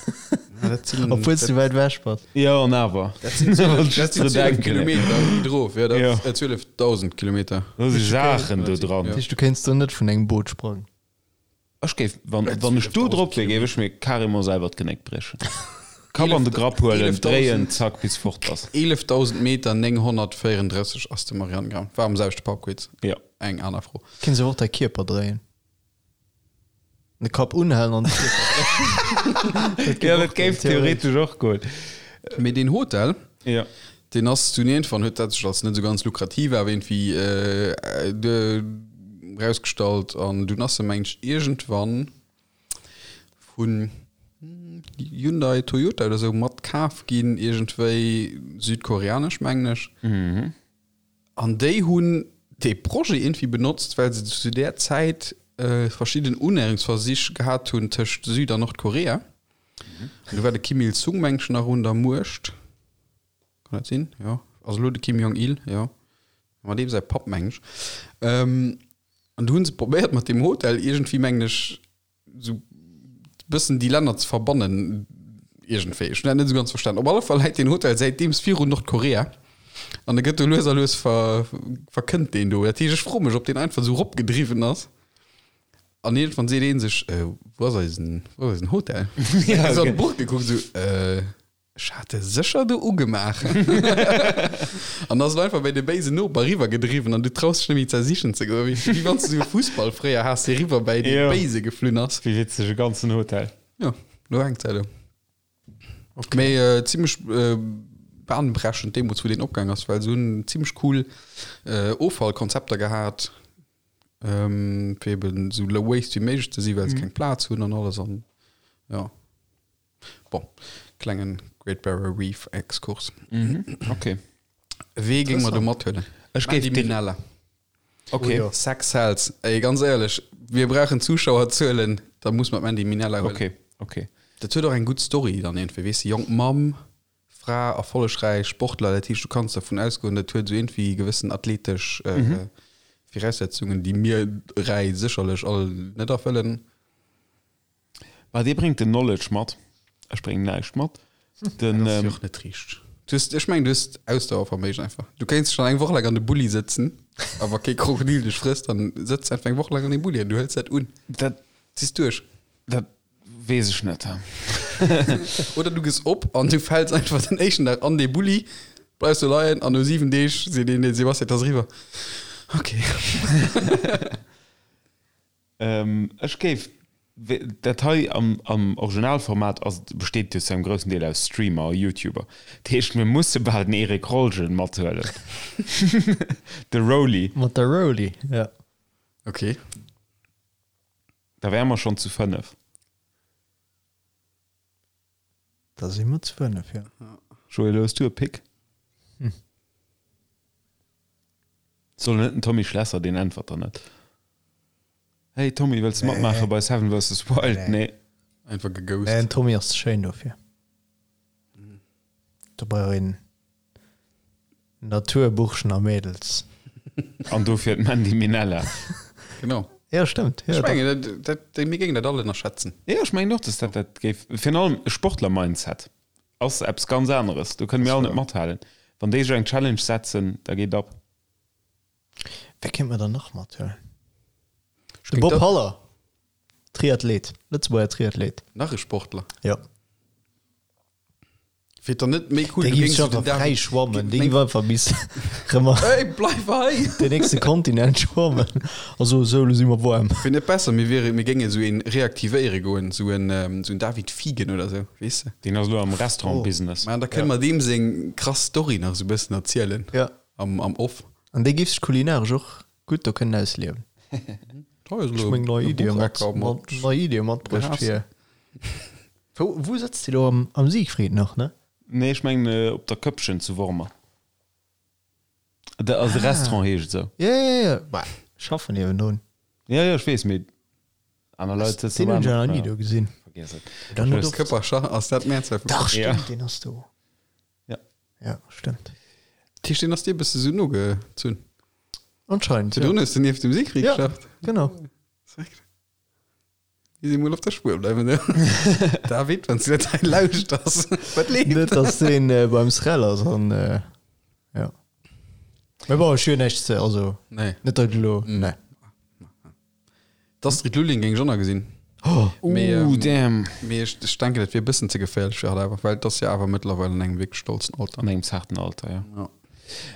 Dat sinn. Obwuel s du wäit ewech bass. Jo, an awer. Dat sinn 12, dat sinn 12 Kilometer méi drof. Jo, dat ass 12.000 Kilometer. Do si Saachen do dran. Dat heescht, du kéints do net vun engem Boot sprangen? Ech géif, wann, wann ech do drop wier, géif ech mir carrément selwer d'Genéck briechen. Kapp an de Grapp huelen, dréien, zack, bis fort ass. 11.000 Meter 934 ass de Marianengraben. War am selwechte Pubquiz. Jo. Eng aner Fro. Kéints awer och däi Kierper dréien. De Kapp unhalen an de Kierper dréien. Jo, dat géif theoretesch och goen. Mee deen Hotel, Jo. deen ass dunn iergendwann, huet dat sech als net esou ganz lukrativ awer iergendwéi erausgestallt an dunn ass e mengen ech iergendwann vun Hyundai, Toyota oder esou mat kaf ginn, iergendwéi südkoreanesch mengen ech. An déi hunn dee Projet iergendwéi benotzt, well se zu där Zäit verschidden Unnäherungsversich gehat hunn tëscht Süd an Nordkorea. An do war de Kim Il-sung, meng ech, nach un der Muecht. Kann dat sinn? Jo. Also elo de Kim Jong-il, jo. Mat deem säi Papp, meng ech. An do hu se probéiert mat deem Hotel iergendwéi, mengen ech, sou bëssen déi Länner ze verbannen iergendwéi. Ech hunn dat net esou ganz verstanen. Op alle Fall läit deen Hotel säitdeems virun Nordkorea an e gëtt do lues a lues ver, verkënnt deen do. Dat heescht, ech froe mech, ob deen einfach esou eropgedriwwen ass an iergendwann seet ee sech, Wou ass eisen, wou ass eisen Hotel? Ja, okay. Esou an d'Buch gekuckt, esou, Ech hat e sécher do ugemaach. An ass et einfach bei de béisen Noper eriwwer gedriwwen an du traus dech net méi ze sichen ze goen. Wéi wéi wann s de esou e Fussball fréier has, dee riwwer bäi dee Béise geflunn ass. Wéi witzeg, e ganzen Hotel. Jo, lo hänkt se do. Mee zimmlech bahnbrechend deemools, wou deen opgaang ass, well se hunn zimmlech cool Offallkonzepter gehat, fir eben esou low waste wéi méiglech ze sinn, well se keng Plaz hunn an alles an jo. Bon, klengen Great Barrier Reef Exkurs. Mhm, okay. Wee géing mer do mathuelen? Ech géif Mandy den- Minella. Okay. Oh, jo. Sex sells. Ey, ganz éierlech, wir brauchen Zuschauerzuelen, da muss mer d'Mandy Minella huelen. Okay, okay. Dat huet och eng gutt Story dann iergendwéi, weess de, jonk Mamm, Fra, erfollegräich Sportler, dat heescht, du kanns dervun ausgoen, dat huet esou iergendwéi gewëssen athletesch Viraussetzungen, déi mir dräi sécherlech all net erfëllen. Bah, dee bréngt den Knowledge mat. Ech bréngen näischt mat. Den, Dat ass jo ähm, och net richteg. Du hues, ech mengen, du hues Ausdauerverméigen einfach. Du kéints schonn eng Woch laang an de Bulli sëtzen, a wa kee Krokodil dech frësst, dann sëtz einfach eng Woch laang an deem Bulli an du hëls dat un. Dat, Ziss duerch. dat weess ech net. Oder du gëss op an du fäls einfach den éischten Dag an dee Bulli, bleifs do leien an no 7 Deeg seet een, den Sebastian, et ass eriwwer. Okay. Ech géif, dat hei am am Originalformat ass, besteet jo zu engem groussen Deel aus Streamer a Youtuber. Dat heescht, mir musse bal den Erik Rolgen mathuelen. De Roly. Mat der Roly, ja. Okay. Da wäre mer schonn zu 5. Da si mer zu 5, jo. Joël, hues du e Pick? Soll net den Tommy Schlesser, deen äntwert der net. Hey Tommy, wëlls de matmaache bei Seven vs. Wild? Nee. Einfach geghost. Nee, den Tommy ass ze schéin dofir. Do brauch een Naturburschen a Mädels. An dofir d'Mandy Minella. Genau. Ja, stëmmt. Ech mengen, dat, dat, mir géingen dat all ënnerschätzen. Jo, ech mengen och, dass dat dat géif. Virun allem e Sportler-Mindset ass eppes ganz aneres. Do kënne mir all net mathalen. Wann déi sech eng Challenge setzen, da geet ab. Wee kéint mer dann nach mathuelen? De Bob Haller, Triathlet, Lëtzebuerger Triathlet. Nach e Sportler? Jo. Wier et dann net méi cool, Dee du géif géings sech den einfach fräi David schwammen. Dee géif einfach bis rëm an Hey, bleif hei! den nächste Kontinent schwammen. Also, sou, elo si mer waarm. Wier net besser, mir wiere, mir géinge sou een reaktivéiere goen, sou en, sou en David Fiegen oder sou, weess de? Deen ass elo am Restaurant-Business. Mä da kënne mer deem seng krass Story nach sou bëssen erzielen. Ja. Am, am Off. An dee géif sech kulinaresch och gutt do kënnen ausliewen. Ech meng nei Iddie mat, mat, nei Iddie matbruecht fir. Wou, wou sëtzt Dir do? Am, am Siegfried nach, ne? Nee, ech mengen op der Këppchen zu Wormer. De, also de Restaurant heescht esou. Ja, ja, ja. Bah, ech schaffen niewendrun. Ja, ja, ech weess, mee aner Leit sëtzen Deen hunn ech aner. nach ni do gesinn. Vergiess et. Dann huet och- Këppercher, ass dat d'Mehrzahl vu Dach, Ja. stimmt, deen ass do. Ja. Ja, stimmt. Dat heescht, deen ass dir e bësse sou nogezunn? Anscheinend, Virdrun ja. hues de nieft dem Siegfried Ja. geschafft. Genau. Respekt. Mir si mol op der Spuer bleiwen, ne? David, wann s du dat hei lauschters, wat leeft? Net, dass deen äh, beim Srel ass an äh, ja. Mee bon, ech hunn näischt ze, also Nee. net dat elo, nee. D'Astrid Lulling géing ech och nach gesinn. Oh, Mee, Ooh, ähm, damn. mee ech, ech denken, dat wier e bëssen ze geféierlech fir hatt awer, well et ass jo awer mëttlerweil an engem wierklech stolzen Alter. An engem zarten Alter, ja. Ja.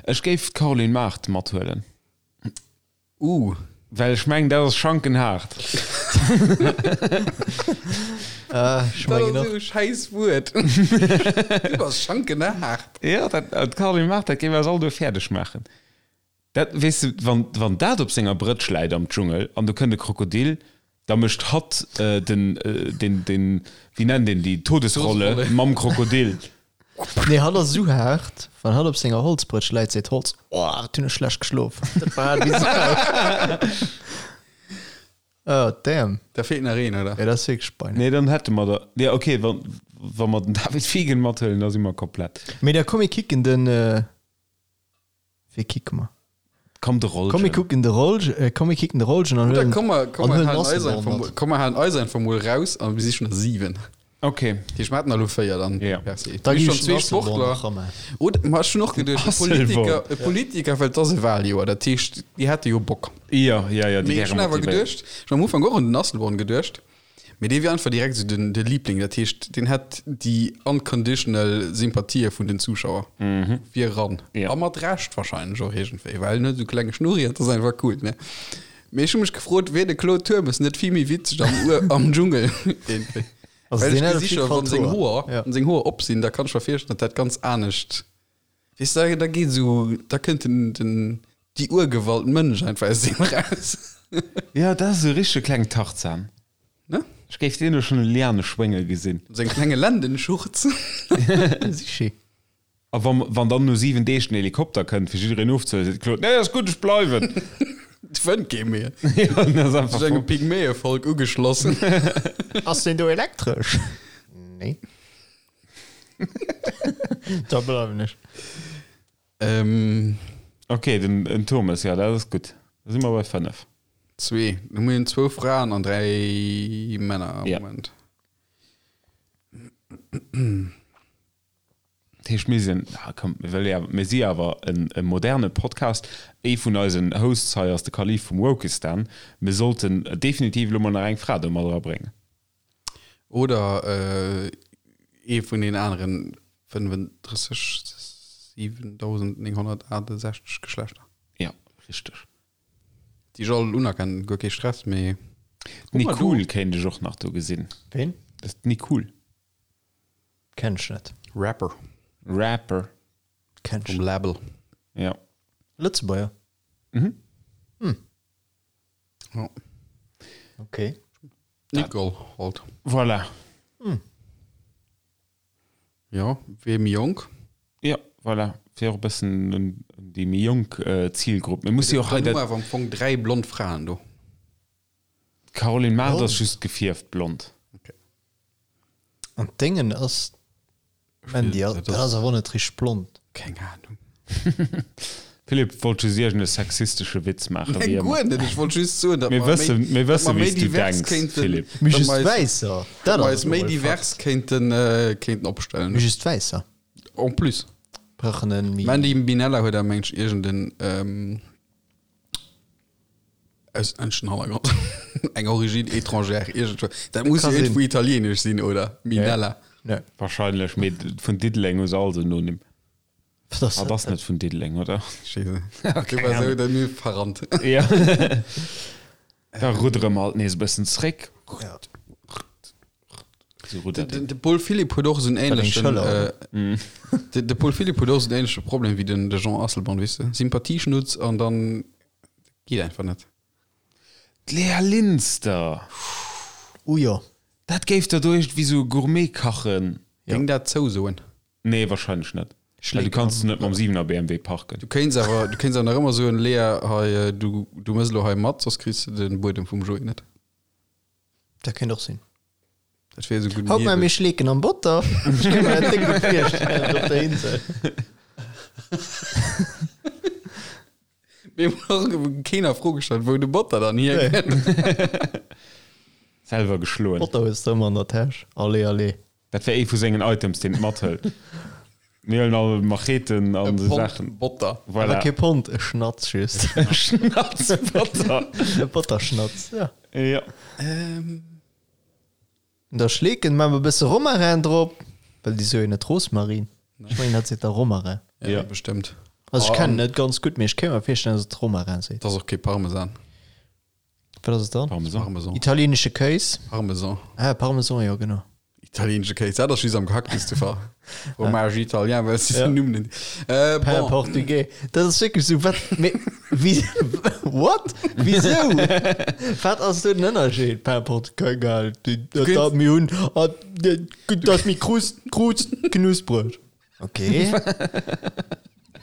Ech géif d'Caroline Mart mathuelen. Uh. Well ech mengen, dat ass schankenhaart. Ah, ech Dat mengen ass och. esou e schäiss Wuert. Du bass schankenhaart. Ja, dat, d'Caroline Mart, dat géif eis all do fäerdeg maachen. Dat, weess de, wann, wann dat op senger Brëtsch läit am Dschungel an do kënnt e Krokodil, da mécht hatt den, den, den, wéi nennt een déi, Todesrolle Todesrolle. mam Krokodil. Nee, hatt ass esou haart, wann hatt op senger Holzbrëtsch läit, seet d'Holz, Oh, wat hunn ech schlecht geschlof. Dat war haart wéi Sau. Oh, damn. Da feelt nach een, oder? Ja, dat ass wierklech bein. Nee, dann hätte mer der, ja, okay, wann, wa mer den David Fiegen mathuelen, da si mer komplett. Mee da komm, mir kicken den, Wee kicke mer? Komm de Rollgen. Komm mir kucken de Rollgen, äh, komm mir kicken de Rollgen an Oder huelen komm mer, komm an mer huelen halen eis Asselborn einfach mat. mol, komm mer halen eis einfach mol raus an mir si schon der 7. Okay. Déi schmaten elo 4 dann. Ja. Merci. Da Mir gi schon ech zwee den Asselborn Sportler. nach ran. Oder ma ech hun och geduecht, e Asselborn. Politiker, e Politiker, well et ass e Wahljoer, dat heescht, déi hätte jo Bock. Ja, ja, ja, déi Mee ech wäre hun awer motivéiert. geduecht, ech hun am Ufank och un den Asselborn geduecht, Mee dee wier einfach direkt esou den, de Liebling, dat heescht, deen hätt déi unconditional Sympathië vun den Zuschauer. Wier eran. Ja. A mat Recht wahrscheinlech och iergendwéi, well en huet esou klenge Schnurri an dat ass einfach cool, ne? Mee ech hu mech gefrot, wier de Claude Turmes net vill méi witzeg am Ur, am Dschungel iergendwéi? Also Well deen ech hätt op gesi jidde scho, Fall wann seng d'Hoer. Hoer, Ja. wann seng Hoer op sinn, da kann ech mer virstellen, datt dat ganz anescht Weess de, da geet esou, da kënnt den, den, déi Urgewalt Mënsch einfach aus deem raus. Ja, dat ass e richtege klengen Tarzan. Ne? Ech géif deen elo schonn e Liane schwénge gesinn. Seng klenge Lendenschurz. Sichi. A wann, wann dann no 7 Deeg den Helikopter kënnt, fir jiddereen ofzehuelen, seet de Claude, Nee, ass gutt, ech bleiwen. Et fënnt kee méi. Ja, dat ass einfach Sech engem Pygmäevolk ugeschloss. Ass deen do elektresch? Nee. Da bleiwen ech. Ähm, Okay, den, den Thomas, ja, dat ass gutt. Da si mer bei 5. zwee. Da hu mir zwou Fraen an dräi Männer am Ja. Moment. Dat heescht, mir sinn, ah, komm, mir wëlle ja, mir si awer en, e moderne Podcast. Ee vun eisen Hosts hei ass de Kalif vum Wokistan. Mir sollten definitiv elo mol nach eng Fra do mat erabréngen. Oder ee vun den aneren 35 7968 Geschlechter. Ja, richteg. Déi ech all unerkennen, guer kee Stress, mee. D'Nicole kéint ech och nach do gesinn. Ween? Dat d'Nicole. Kenn ech net. Rapper. Rapper. Kenn ech Vum Label. Ja. Lëtzebuerger? Mhm. Hm. Ja. Okay. Nicole halt. Voilà. Hm. Ja, wier méi jonk. Ja, voilà. Fir och e bëssen un déi méi jonk Zilgrupp. Mir musse jo och hei Dann hu dat. mer awer am Fong 3 blond Fraen do. D'Caroline Mart ass just gefierft blond. Okay. An d'Déngen ass Mandy, dat ass awer net richteg blond. Keng Ahnung. Philippe wollt just iergend e sexistesche Witz maachen, wéi Nee, ëmmer. guer net. Ech wollt just soen, datt Mir mer méi, wëssen, mir datt wëssen, mer méi wéi s du divers denks, kéinten, Philippe. Mee datt just mer eis, Wäisser, datt dat mer ass eis méi emol e divers Fakt. kéinten, äh, kéinten opstellen. Mee just Wäisser En plus. brauchen en méi. Mandy Minella huet awer, meng ech, iergenden, ähm, auslänneschen Hannergrond. Eng Origine étrangère, iergendwou. Dat muss Ka jo sinn. iergendwou italienesch sinn, oder? Minella. Nee. Wahrscheinlech, mee vun Diddeleng hu se all Synonym. Dat ass Ah, das net vun Diddeleng, oder? Scheisse. Du war sou der mir verrannt. Ja. Da ruddere mer halt nees e bëssen zréck. Ja. So ruddert De, een. de Paul Philipp huet och esou en Wat eng ähnlechen Schëller, äh, de, de Paul Philipp huet och esou en ähnleche Problem wéi den de Jean Asselborn, weess de? Sympathieschnutz an dann geet einfach net. D'Lea Linster! Oh jo. Dat géif der do iergendwéi sou Gourmet kachen. Géing dat zousoen? Nee, wahrscheinlech net. Well du kanns net mam 7er BMW parken. Du kéints awer, du kéints awer nach ëmmer soen, Lea, hei, du, du mëss elo hei mat, soss kriss de den Buedem vum Joé net. Dat kéint och sinn. Dat wier esou gutt. Haut maache mir Schleeken am Botter. Ech kéint mer dat déck gutt virstellen op der Insel. Mir hunn och keen a Fro gestallt, wou de Botter dann hierkënnt. Selwer geschloen. Botter hues de ëmmer an der Täsch. Allez, allez. Dat wär ee vu sengen Items, deen et mathëlt. Mir huelen all Macheten an esou Pond Saachen. Botter. Voilà. Awer kee Pond, e Schnatz just. E Schnatz Botter. E Botterschnatz, ja. Ja. Ähm. Da Schleeken, maache mer e bësse Romarin drop, well déi soe jo net Rosmarin. Ech mengen, dat seet da Romarin. Ja, bestëmmt. Also ech kennen et net ganz gutt, mee ech kéint mer virstellen, dass et Romarin seet. Dat ass och kee Parmesan. Wat ass et dann? Parmesan. Parmesan. Italienesche Kéis. Parmesan. Ah, Parmesan, jo, genau. Italienesche Kéis, dat ass just am Gehacktes de Fall. Fromage italien, well s du den Numm net. Äh, Pain bon. portugais. Dat ass wierklech esou, wat, mee, wie, what? Wisou? Wat ass do den Ënnerscheed? Pain portugais, geil. Dat, dat mir hunn, ah, dat ass méi krust, krust, knuspreg. Okay.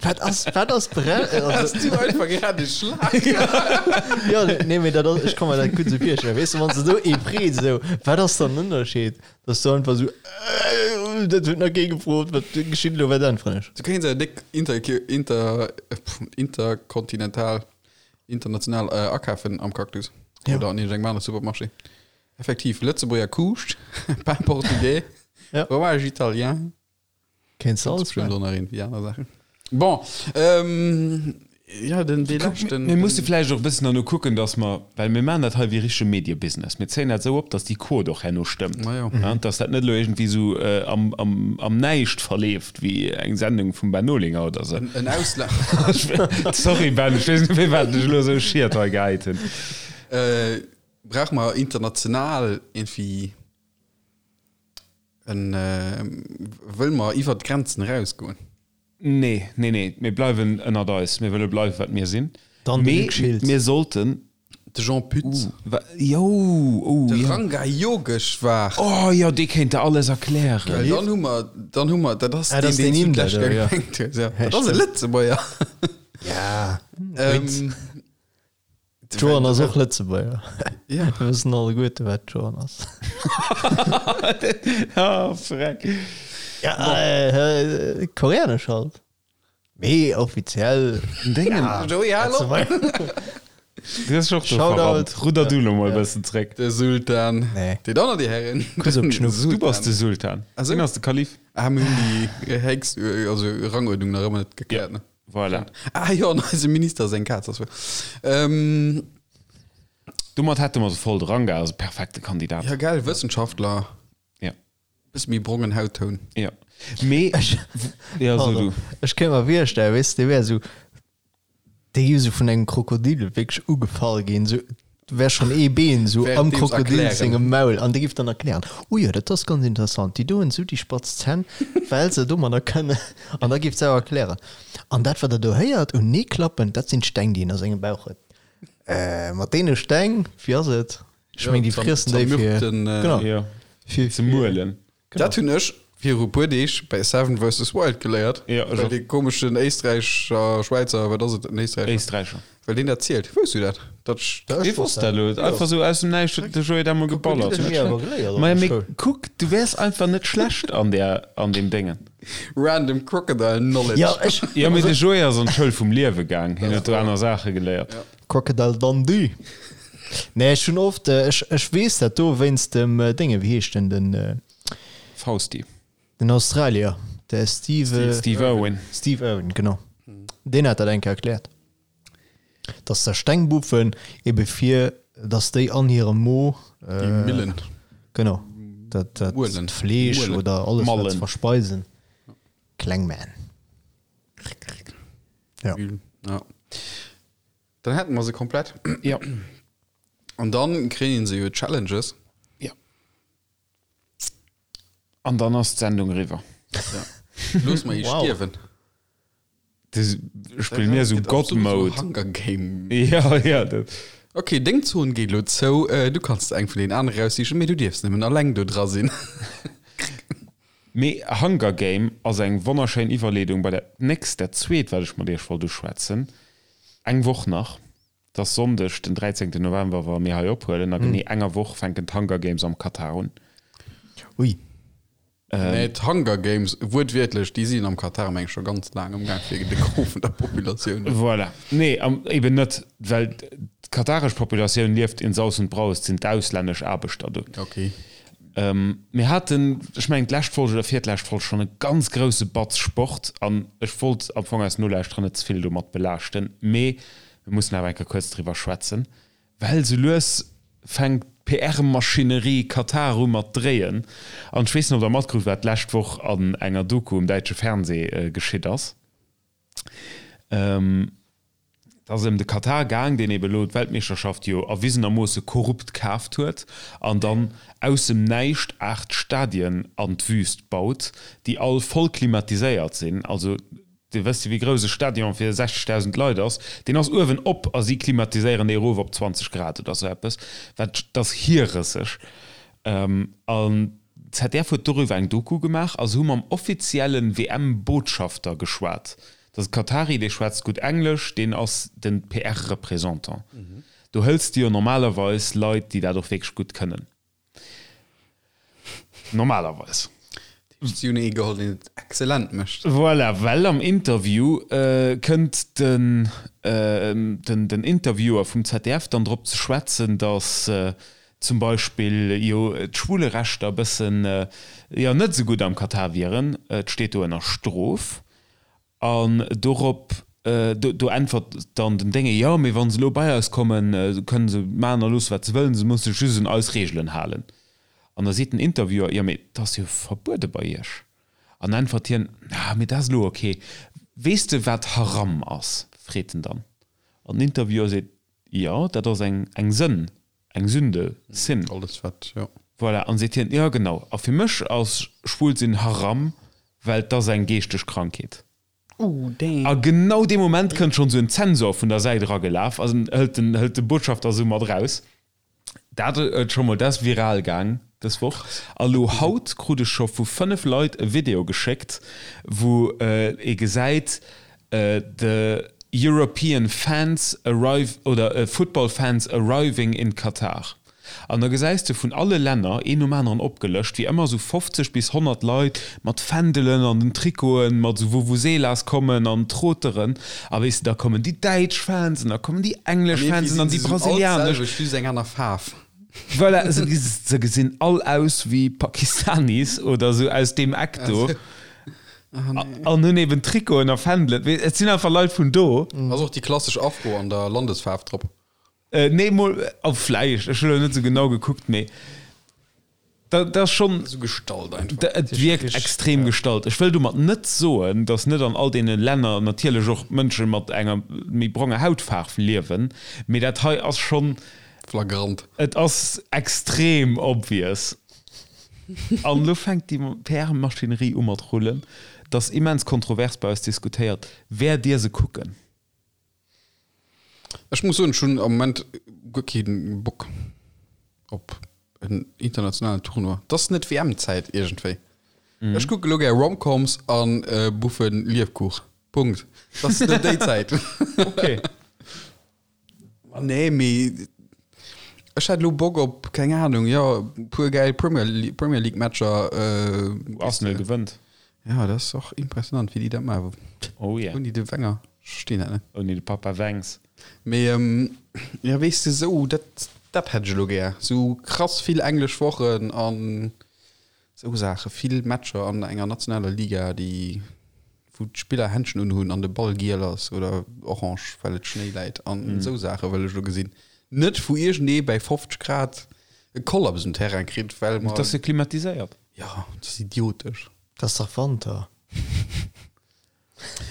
Wat ass, wat ass Brell? Hast du einfach grad e Schlag? Ja, nee, mee dat ass, ech kann mer dat gutt esou virstellen. Weess de, wann se do ee freet esou, wat ass dann den Ënnerscheed? Dass du einfach esou, äh, dat huet nach kee gefrot, wat geschitt elo, wat äntweren ech? Du kéints awer déck inter, inter, interkontinental, international äh, akafen am Cactus. Ja. Oder an iergendengem anere Supermarché. Effektiv, Lëtzebuerger Kuuscht, Pain portugais, Ja. Fromage italien. Kéints de alles Bestimmt maachen. och nach irgendwie aner Saachen. Bon, ähm, ja, den, dee leschten. Mir musse vläicht och e bëssen derno kucken, dass mer, well mir maachen dat hei wéi richtege Mediebusiness, mir zéien dat esou op, dass déi Quot och herno stëmmt, Ma jo. ja, dass dat net elo iergendwéi esou am, am, am Näischt verleeft wéi eng Sendung vum Ben Olinger oder esou. En Ausla. Sorry Ben, ech weess net firwat ech elo esou Schiet hei gehäit hunn. Äh, brauche mer international irgendwie En, wëll mer iwwert d'Grenzen erausgoen? Nee, nee, nee, mir bleiwen ënnert eis. Mir wëlle bleiwen, wat mir sinn. Dann de Mee Luc Schiltz. mir sollten. De Jean Pütz. Uh, wa, jo, oh, De ja. Ranga Yogeshwar. Oh jo, dee kéint der alles erklären. Well dann hu mer, dann hu mer, dat ass Ah, dat ass deen, deen deen Inder du do, ja. gemengt hues, ja. Ja, Dat ass e stimmt. Lëtzebuerger. Ja. Ähm, D'Joan ass och Lëtzebuerger. Ja. Mir wëssen alleguerte wat d'Joan ass. Ah, freck. Ja, äh, koreanesch halt. Mee offiziell. Dingen. Ja, Joey, hallo. Lëtzebuerger. Du hast och do Shoutout. verrannt. Rudder du lo mol e bëssen zréck. De Sultan. Nee. Déi Donner, déi Herren. Kuss op d'Schnuff. Du bass de Sultan. Ah, so? Hien ass de Kalif. Ah, mir hunn déi Hex, also Ranguerdnung nach ëmmer net gekläert, ne? Voilà. Ah jo, an eisem Minister seng Kaz ass wuel. Ähm, Domat hätte mer se voll. De Ranga ass e perfekte Kandidat. ja gell, Wëssenschaftler. Ja. Bësse méi brongen Hauttoun. Ja. Mee, ja, so du. Ech kéint mer virstellen, weess de, dee wär esou, dee géif esou vun engem Krokodil wierklech ugefall ginn, esou, wär schonn ee Been esou am Währenddeems Krokodil erklären. sengem Maul an dee géif dann erklären, Oh jo, dat ass ganz interessant, déi do hunn esou déi spatz Zänn, well se domadder kënnen. An da géif se awer erklären, An dat, wat der do héiert un Neeklappen, dat sinn d'Steng, déi en a sengem Bauch huet. Äh, mat deene Steng, wéi ass et? Ech meng, déi friessen déi fir, Zermürkten, äh, genau, Ja. fir, Ze muelen. Dat hunn ech viru puer Deeg bei Seven vs. Wild geléiert. Ja, ech Well och. dee komeschen Éisträicher, Schwäizer, wat ass et, en Éisträicher? Éisträicher. Well deen dat zielt. Wousst du dat? Dat ech. Ech wosst dat elo. Einfach sou aus dem Näischt huet de Joé dat mol geballert. Hu mir awer geléiert op Maja, der mee Schoul. kuck, du wäers einfach net schlecht an där, an deem Déngen. Random Crocodile Knowledge. Ja, ech. Jo, mee de Joé ass an d'Schoul vum Liewe gaang. Hien huet do aner Saache geléiert. Crocodile Dundee. Nee, ech hunn oft, ech, ech weess dat do wéinst dem Dénge, wéi heescht den, den. Fausti. Den Australier, de Steve. Steve Irwin. Steve Irwin, genau. Deen hat dat eng Kéier erkläert. Dass der Stengbuffen ebe fir, dass déi an hirem Mo. Déi Millen. Genau. Dat, dat Muelen. Fleesch Muelen. oder alles, wat se Mallen. verspeisen. Kleng Man. Ja. Ja. Dann hätten wir se komplett. Ja. An dann kréien se jo Challenges. Ja. An dann ass d'Sendung eriwwer. Ja. Looss mer ee Wow. stierwen. Das spille mir sou Gëtt absolut God-Mode. so Hunger Game. Ja, ja. Dat. Okay, deng Zon geet lo zou. Äh, du kanns eng vun den anere raussichen, mee du dierfs nëmmen alleng do dra sinn. Mee Hunger Game ass eng wonnerschéin Iwwerleedung bei dat nächst, dat zweet, wat ech mat iech wollt uschwätzen. Eng Woch nach. Et ass Sonndeg, den 13 November, wa mir hei ophuelen. A genee enger Woch fänken d'Hunger Games am Katar un. Ui. Nee, d'Hunger Games, wuertwiertlech, déi sinn am Katar, meng ech, scho ganz laang am Gaang fir de Gros vun der Populatioun. Voilà. Nee, eben net, well d'kataresch Populatioun lieft in Saus und Braus, et sinn d'auslännesch Aarbechter do. Okay. Mir haten, ech mengen d'lescht Folg oder virtlescht Folg, schonn e ganz grousse Batz Sport an ech wollt am Fong eis Nolauschterer net ze vill domat belaaschten, mee mir mussen awer eng Kéier kuerz driwwer schwätzen. Well sou lues fänkt d'PR-Maschinerie Katar u mat dréien. An ech weess net, ob der matkrut, wat d'lescht Woch an enger Doku um däitsche Fernsee geschitt ass. Et ass ëm de Katar gaang, deen ebe lo d'Weltmeeschterschaft jo erwisenermoosse korrupt kaaft huet an dann aus dem Näischt 8 Stadien an d'Wüst baut, déi all voll klimatiséiert sinn. Also Dir wësst jo wéi grouss e Stadion fir 60.000 Leit ass. Deen ass uewen op a si klimatiséieren dee erof op 20 Grad oder sou eppes. Wat, dat ass hierrësseg. An d'ZDF huet doriwwer eng Doku gemaach a se hu mam offizielle WM-Botschafter geschwat. Dat ass e Katari, dee schwätzt gutt Englesch, deen ass de PR-Représentant. Do hëls de jo normalerweis Leit, déi dat och wierklech gutt kënnen. Normalerweis. Si hunn ee geholl, deen et excellent mécht. Voilà, well am Interview kënnt den den Interviewer vum ZDF dann drop ze schwätzen, datt zum Beispill jo d'Schwulerechter e bëssen, jo, net esou gutt am Katar wieren. Et steet do ënner Strof. An dorop, do äntwert dann den Dénge, Jo, mee wa se elo bei eis kommen, kënnen se maachen a loosse wat se wëllen, se musse sech just un eis Reegelen halen. An da seet den Interviewer, Jo, mee dat ass jo verbuede bei iech. An äntwert hien, Ah, mee dat ass elo ok. Weess de wat Haram ass? freet en dann. An den Interviewer seet, Jo, dat ass eng Sënn. Eng Sünde, Sin. Alles wat, jo. Voilà, an seet hien, jo genau, a fir mech ass schwul sinn Haram, well 't ass eng geeschteg Krankheet. Ooh, damn. A genau dee Moment kënnt schonn esou en Zensor vun der Säit eragelaf a hëlt den, hëlt de Botschafter esou mat raus. Dat huet scho mol, dat ass viral gaang dës Woch. A lo haut krut ech scho vu 5 Leit e Video geschéckt, wou ee gesäit, The European fans arrive oder Football fans arriving in Qatar. An da gesäis de vun alle Länner, een nom aneren opgelëscht, wéi ëmmer esou 50 bis 100 Leit mat Fändelen an den Trikoten, mat esou Vuvuzelas kommen an Troteren. A weess de, da kommen déi däitsch Fans an da kommen déi englesch Fans an dann déi brasilianesch. Just eng aner Faarf. Voilà, se gesinn all aus wéi Pakistanis oder esou aus deem Eck do. An hunn eben Trikoten a Fändelen. Et sinn einfach Leit vun do. Ass och déi klassesch Afro an der Landesfaarf drop? Nee, mol, oh vläicht, ech hunn elo net esou genau gekuckt, mee dat ass schonn. Esou gestallt einfach. Et wierkt extrem gestallt. Ech wëll domat net soen, datt net an all deene Länner natierlech och Mënsche mat enger méi bronger Hautfaarf liewen, mee dat hei ass schonn. Flagrant. Et ass extrem obvious. An elo fänkt déi PR-Maschinerie u mat rullen. Et ass immens kontrovers bei eis diskutéiert. Wäert Dir se kucken? Ech muss soen, ech hunn am Moment guer kee Bock op en internationalen Tournoi. Et ass net WM-Zäit iergendwéi. Ech kucke elo gär Romcoms a buffe Liefkuch. Punkt. Et ass net déi Zäit. Okay. Nee, mee ech hätt elo Bock op, keng Ahnung, jo, e puer gäil Premier League, Premier League Matcher. Wou Arsenal gewënnt. Ja, dat ass och impressionant, wéi déi dat maachen. Oh yeah. Ouni de Wenger, ech verstinn dat net. Ouni de Papa Wengs. Mee, jo, weess de, sou, dat, dat hätt ech elo gär. Sou krass vill englesch Wochen an Sou Saachen, vill Matcher an enger nationaler Liga, déi wou d'Spiller Händschen unhunn an de Ball giel ass oder orange, well et Schnéi läit an esou Saache wëll ech elo gesinn. Net wou iergendee bäi 50 Grad e Kollaps um Terrain kritt, well mer. Et ass jo klimatiséiert. Jo, dat ass idiotesch. Dat ass dach Wanter.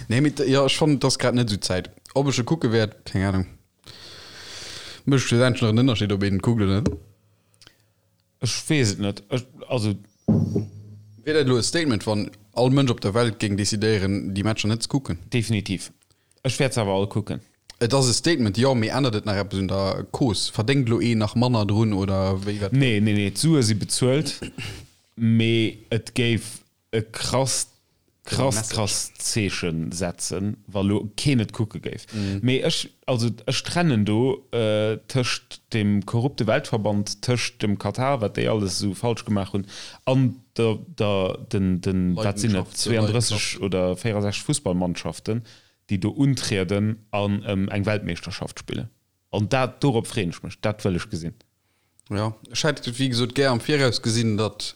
Nee, mee jo, ech fannen, et ass grad net esou d'Zäit. Ob ech e kucke wäert, keng Ahnung. Mécht schlussendlech nach en Ënnerscheed, ob een et kuckt oder net? Ech weess et net. Ech, also. Wier dat elo e Statement, wann all Mënsch op der Welt géing decidéieren, déi Matcher net ze kucken? Definitiv. Ech wäert se awer all kucken. Et ass e Statement, jo, mee ännert et nach eppes un der Cause? Verdéngt elo een nach manner drun oder wéi wat? Nee, nee, nee, d'Sue si bezuelt, mee et géif e krasst. Krass, krass Zeechen setzen, wa lo keen et kucke géif. Mee ech, also ech trennen do tëscht dem korrupte Weltverband, tëscht dem Katar, wat déi alles esou falsch gemaach hunn, an der, der, den, den, wat sinn et, 32 oder 64 Fussballmannschaften, déi do untrieden an ëm eng Weltmeeschterschaft spillen. An dat, dorop freeën ech mech, dat wëll ech gesinn. Jo, ech hätt wéi gesot gär am Viraus gesinn, datt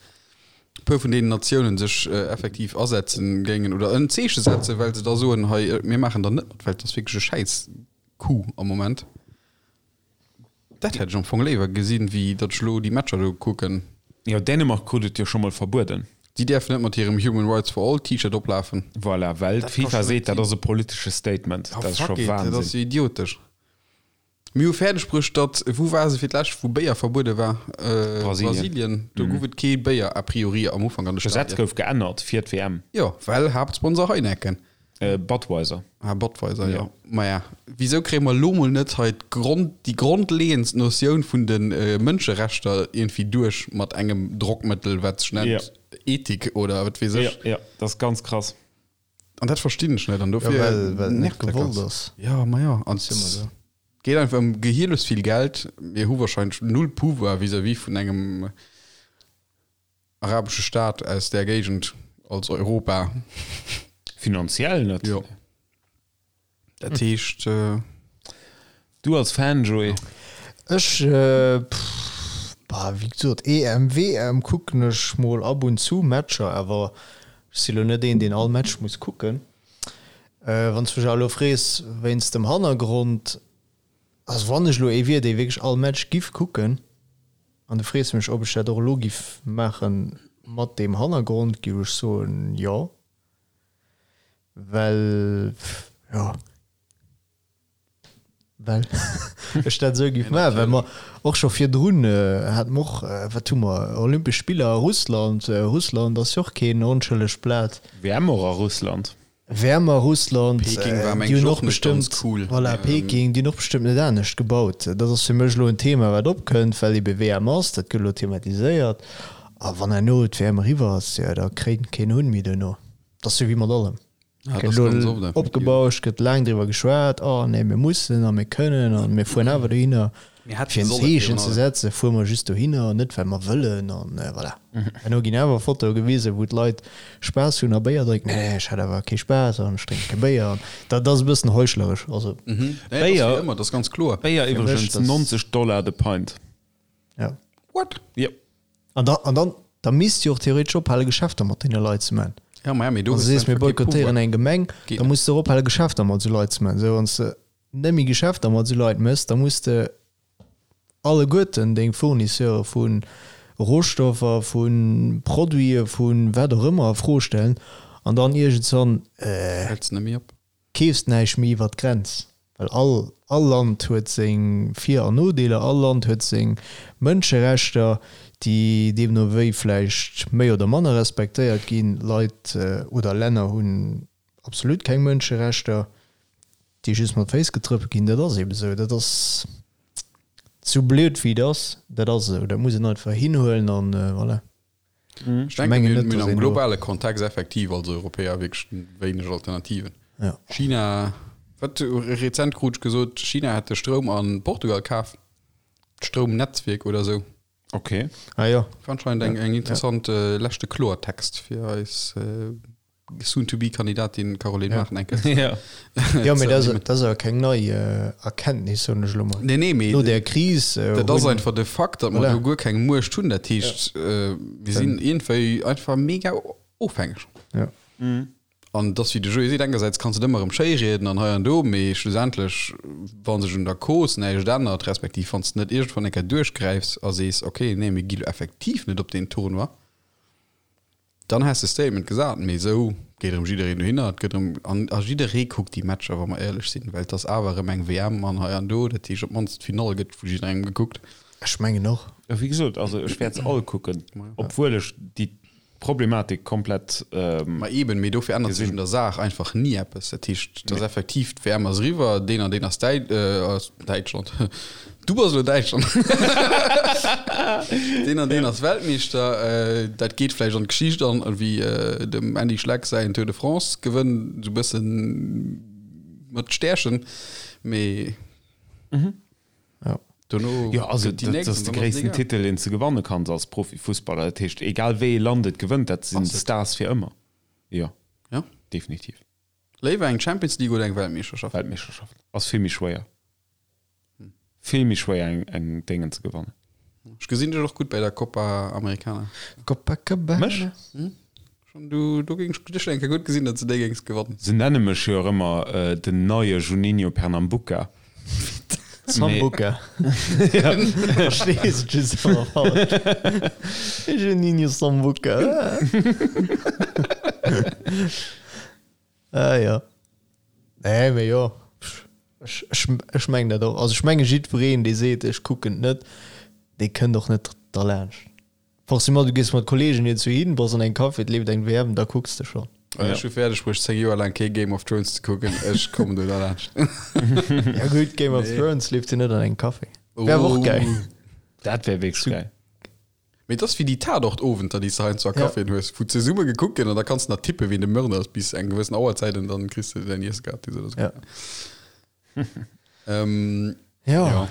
e puer vun deenen Natiounen sech effektiv asetzen géingen oder en Zeeche setzen, well se da soen, hei mir maachen da net mat, well et ass wierklech e schäiss Coup am Moment. Dat hätt ech am Fong léiwer gesinn, wéi datt ech elo déi Matcher do kucken. Jo, Dänemark krut et jo scho mol verbueden. Déi däerfen net mat hirem Human Rights for All T-Shirt oplafen. Voilà, well d'FIFA seet, dat ass e politesche Statement. Dat ass scho Wahnsinn. Dat ass jo idiotesch. Mir hu fäerdeg bruecht, datt, wou war se fir d'lescht, wou Béier verbuede war? Brasilien. Brasilien. Do gouf et kee Béier a priori am Ufank an de Stadien. D'Gesetz gouf geännert fir d'WM. Jo, well Haaptsponsor Heineken. Budweiser. Ah, Budweiser, jo. Maja, wisou kréie mer elo mol net hei d'Grond, déi grondleeëndst Notioun vun de Mënscherechter iergendwéi duerch mat engem Drockmëttel, wat sech nennt Ethik oder wat weess ech? Jo, jo, dat ass ganz krass. An dat verstinn ech net an dofir ja, well, well net nervt dat gewollt ganz. ass. Ja, ma ja, an Ass immer so. geet einfach ëm gehierlos vill Geld. Mir hu wahrscheinlech null Pouvoir vis-à-vis vun engem arabesche Staat aus där Géigend als Europa. Finanziell net. Jo. Dat heescht. Du als Fan, Joé? Ech, pff, bah, wéi gesot, EM, WM kucken ech mol ab und zu Matcher, awer ech si lo net een, deen all Match muss kucken. Wann s mech awer elo frees wéinst dem Hannergrond, also wann ech elo ee wier, dee wierklech all Match giff kucken, an du frees mech, ob ech dat och elo giff maache mat deem Hannergrond, giff ech soen, jo. Well, jo, well ech dat esou géif maachen, well mer och scho virdrun hate mer och, wat hu mer, Olympesch Spiller a Russland. Russland ass jo och keen onschëllegt Blat. WM och a Russland. WM a Russland, Peking war déi mengen hunn ech och och net ganz bestëmmt, cool. voilà, Peking, déi hunn och bestëmmt net anescht gebaut. Dat ass fir mech elo en Thema, wat opkënnt, well ebe WM ass, dat gëtt elo thematiséiert. A wann herno d'WM eriwwer ass, jo, da kréint keen Hunn méi duerno. Dat ass jo wéi mat allem. Ja, Gëtt das elo ganz oft effektiv. opgebauscht, gëtt laang driwwer geschwat, oh nee, mir mussen a mir kënnen a mir fueren awer dohinner. Mir hätte Fir en sollen Zeechen virun ze allem. setzen, fuere mer just dohinner, net well mer wëllen an voilà. Herno ginn awer Fotoe gewisen, wou d'Leit Spaass hunn a Béier drénken. Nee, nee, ech hat awer kee Spaass an ech drénke kee Béier an dat ass e bëssen heuchleresch. Also, Nee, dat ass Béier- wéi ëmmer, dat ass ganz kloer. Béier Fir mech, iwwregens das- 90 Dollar de Pint. ja. What? Jo. An da, an dann, da misst jo och theoretesch ophale Geschäfter mat deene Leit ze man. Ja, ma ja, mee do Wann du hues du sees, mir einfach kee boykottéieren Pouvoir. eng Gemeng, Geet da net. muss de och ophale Geschäfter mat esou Leit ze man. Sou, wann s de net méi Geschäfter mat esou Leit méchs, da muss de alleguerten deng Fournisseure vu Rohstoffer, vu Produite, vu wat och ëmmer a Fro stellen an dann iergendswann, Häls net méi op. keefs näischt méi iwwert d'Grenz, well all all Land huet seng Vir an Nodeeler, all Land huet seng Mënscherechter, déi deemno wéi vläicht méi oder manner respektéiert ginn. Leit oder Länner hunn absolut keng Mënscherechter, déi just mat Féiss getrëppelt ginn. Dat ass eebe sou. Dat ass sou blöd wéi et ass, dat ass esou. Dat muss een einfach hinhuelen an voilà. Ech denken, mengen mir net, hunn dass am een do- globale Kontext effektiv als Europäer wierklech wéineg Alternativen. Ja. China, wat rezent krut ech gesot, China hätt de Stroum a Portugal kaf, d'Stroumnetzwierk oder esou. Okay. Ah jo. War anscheinend eng, eng interessant äh, leschte Kloertext fir eis äh, Soon-to-be-Kandidatin Caroline Ja. Mart enke. Ja. Jo, mee dat ass, dat ass awer keng nei Erkenntnis, soen ech elo mol. Nee, nee, mee No där Kris. dat ass einfach de Fakt, datt mer Voilà. do guer keng Muecht hunn. Dat heescht, mir sinn iergendwéi einfach mega ofhängeg. Ja. An et ass wéi de Joé seet, engersäits kanns de et ëmmer erëm schéi rieden an hei an do, mee schlussendlech, wa sech un der Cause näischt ännert, respektiv wann s de net iergendwann eng Kéier duerchgräifs a sees, okay, nee, mir gi lo effektiv net op deen Tournoi, Dann häss de Statement gesat, mee esou geet erëm jiddereen dohinner, et gëtt erëm, an a jidderee kuckt déi Matcher, wa mer éierlech sinn, well et ass awer erëm eng WM an hei an do, dat heescht op d'mannst d'Finall gëtt vu jidderengem gekuckt. Ech mengen och. Wéi gesot, also ech wäert se all kucken, obwuel ech déi Problematik komplett. Ma eben, mee dofir ännert sech un der Saach einfach ni eppes. Dat heescht, et ass effektiv, d'WM ass eriwwer, deen an deen ass Däitschland, ass Däitschland. Du bass elo Däitschland. Deen an deen ass Weltmeeschter. Dat geet vläicht an d'Geschicht an, wéi dem Andy Schleck säin Tour de France Gewënn, esou e bëssen mat Stärchen, mee dono Jo, also gëtt déi dat nächst ass an de dann ass et gréissten egal. Titel, deen s de gewanne kanns als Profifussballer. Dat heescht, egal wéi ee Land et gewënnt, dat sinn Stars fir ëmmer. Jo, Ja. definitiv. Léiwer eng Champions League oder eng Weltmeeschterschaft? Weltmeeschterschaft ass vill méi schwéier. Vill méi schwéier eng eng Déngen ze gewannen. Ech gesinn dech och gutt bei der Copa Americana. Copacabana. Mech? Schon du, do géing ech dech eng Kéier gutt gesinn, datt s de déi géings gewannen. Se nenne mech jo och ëmmer den neie Juninho Pernambuca. Sambuca. Verstees et just awer falsch. Juninho Sambuca. Ah jo. Nee, mee jo. Ech, ech, ech mengen dat och. Also ech menge jiddwereen, dee seet, ech kucken et net, dee kënnt och net derlaanscht. Forcément, du gees mat Kolleegen iergendwou hin, bass an engem Café, et leeft eng WM, da kucks de schonn. Ech hu fäerdeg bruecht 10 Joer laang kee Game of Thrones ze kucken, ech kommen do derlaanscht. Ja gutt, Game of Thrones leeft jo net an engem Café. Wär awer och gäil. Dat wär wierklech gäil. Mee et ass wéi déi Tatort-Owenter, déi s de heiansdo a Caféen hues, wou zesumme gekuckt gëtt an da kanns de nach tippen, wien de Mörder ass bis eng gewëssen Auerzäit an dann kriss de däin Iesse gratis oder sou. Ja. Ähm, Ja. ja.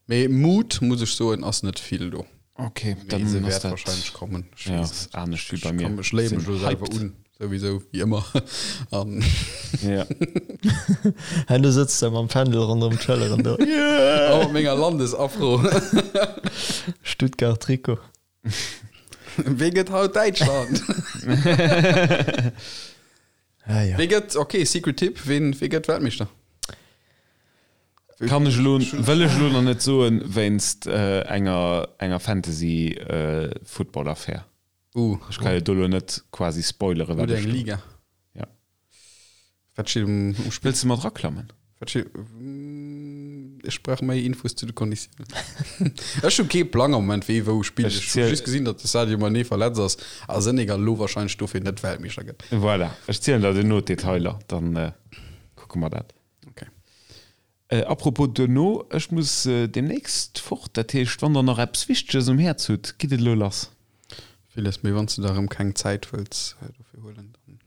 Mee Mut, muss ech soen, ass net vill do. Okay, Mee dann se ass wäert dat wahrscheinlech kommen. Ech ja, weess ass net. anescht wéi bei Ech mir. kann mech léie mech Sinn elo selwer hyped. un, souwisou, wéi ëmmer. An Ja. Hein, du sëtz da mam Fändel ronderëm d'Schëlleren do. Yeah! a mat menger Landesafro. Stuttgart Trikot. Wee gëtt haut Däitschland? Ah, ja. Wee gëtt, okay, Secret Tipp, ween, wee gëtt Weltmeeschter? Kann ech elo, wëll ech elo nach net soen, wéinst enger, enger Fantasy-Football-Affär. Uh, Ech ka jo do elo net quasi spoileren, wat oder ech eng do. Liga. Ja. Wat steet um, um Spill? Wëlls de mat raklammen? Wat steet, ech brauch méi Infos zu de Konditiounen. Ech hu kee Plang am Moment, wee wou spillt. Ech Ech hu ziel- just gesinn, datt de Sadio Mané verletzt ass a Senegal elo wahrscheinlech dofir net Weltmeeschter gëtt. Voilà, ech zielen der duerno d'Detailer, dann kucke mer dat. Okay. Apropos duerno, ech muss demnächst fort, dat heescht, wann der nach eppes Wichteges um Häerz hutt, gitt et elo lass. Villes, mee wann s de der erëm keng Zäit wëlls dofir huelen, dann.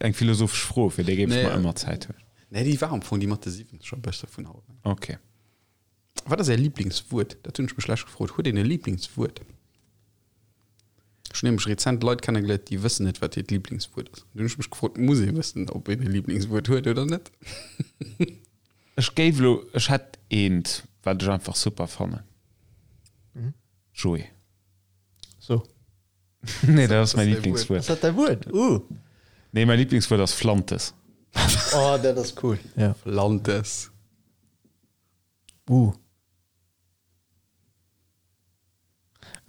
Eng philosophesch Fro, fir déi géif ech Nee. mer ëmmer Zäit huelen. Nee, déi war am Fong déi mat de 70 e bësse vun haut. Okay. Wat ass Är Liblingswuert? Dat hunn ech mech lech gefrot. Huet een e Liblingswuert? Ech hunn nämlech rezent Leit kennegeléiert, déi wëssen net, wat hiert Liblingswuert ass. Dunn hunn ech mech gefrot, muss ee wëssen, ob een e Liblingswuert huet oder net? Ech géif elo, ech hätt eent, wat ech einfach super fannen. Joé. So. Nee, dat ass mäi däi Liblingswuert. Ass dat däi Wuert? Uh. Nee, mäi Liblingswuert ass Flantes. Oh, dat ass cool. Ja. Flantes. Uh.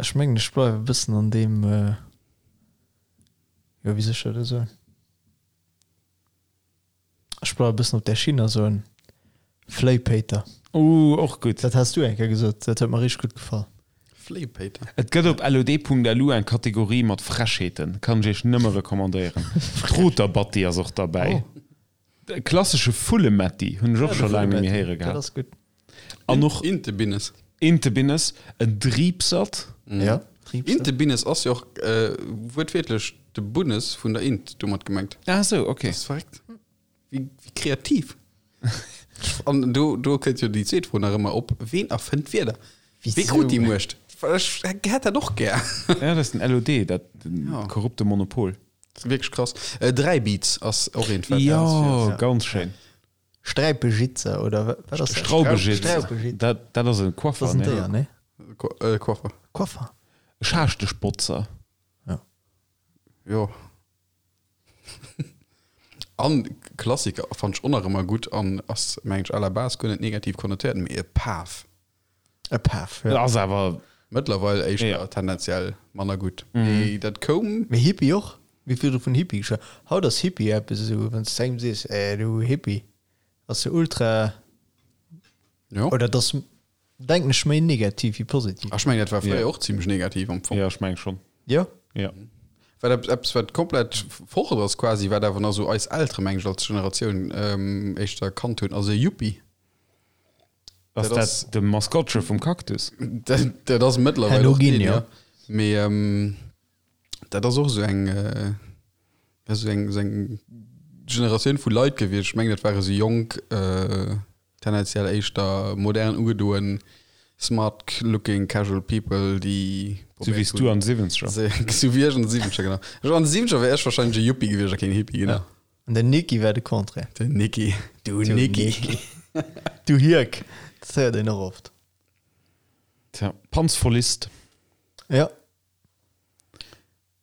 Ech mengen ech bleiwe e bëssen an deem, jo wéi soll ech dat elo soen, ech bleiwe e bëssen op där Schinn a soen Fléipéiter. Uh, och gutt. Dat has du eng Kéier gesot, dat huet mer richteg gutt gefall. Fléipéiter. Et gëtt op lod.lu eng Kategorie mat Frechheeten, kann ech iech nëmme recommandéieren. D'Roterbatti ass och derbäi. De klassesche Vullemetti hunn ech och scho laang net méi héiere Dat gehat. ass gutt. An och Intebinnes. Intebinnes, en Driipsert. Ja, Driipsert. Intebinnes ass jo och wuertwiertlech de Bunnes vun der Int domat gemengt. Ah sou, okay. Dat ass verréckt. Wéi kreativ. An do, do kënnt jo déi zweet Fro nach ëmmer op, Ween erfënnt d'Wierder? Wee krut déi Muecht? Ech hätt dat och gär. Ja, dat ass den LOD, dat korrupte Monopol. Dat ass wierklech krass. Dräibiz ass och eent, wat Jo, ganz schéin. Sträipejitzer oder wat ass dat? Straubejitzer. Straubejitzer. Dat, dat ass e Coiffer, Dat ass en ne? Déier, ne? Coiffer. Coiffer. Schaaschteschbotzer. Ja. Jo. An Klassiker fand ech och nach ëmmer gutt an ass, mengen ech, à la base guer net negativ konnotéiert, mee e Paf. E Paf, Dat ja. ass awer. Mëttlerweil éischter Ja. tendenziell manner gutt. Mee dat koum. Mee Hippie och? Wéi vill vun Hippie geschwat? Haut ass Hippie eppes esou, wann s de engem sees, eh du Hippie, ass se ultra. Jo. Oder dat ass, denken ech, méi negativ wéi positiv. Ech mengen, dat war fréier Ja. och zimmlech negativ am Fong. Ja, ech meng schonn. Jo? Ja. Wat eppes, eppes wat komplett fort ass quasi, wat awer nach esou eis Eltere, mengen ech, als Generatioun éischter kannt hunn, ass e Yuppie. Ass dat de Maskottche vum Cactus? Dat ass mëttlerweil och deen, jo. Mee dat ass och esou eng, esou eng, esou eng Generatioun vu Leit gewiescht. Ech mengen, dat ware sou jonk, tendenziell éischter modern ugedoen, smart looking casual people, déi Sou wéi s du an de Siwwenzeger. Sou wéi ech an de Siwwenzeger, genau. Ech an de Siwwenzeger wär ech wahrscheinlech e Yuppie gewiescht a keen Hippie, genau. An den Niki war de Contraire. Den Niki, du Niki. Du Hierk, dat héiert een och oft. Tja, Panzvollist. Ja.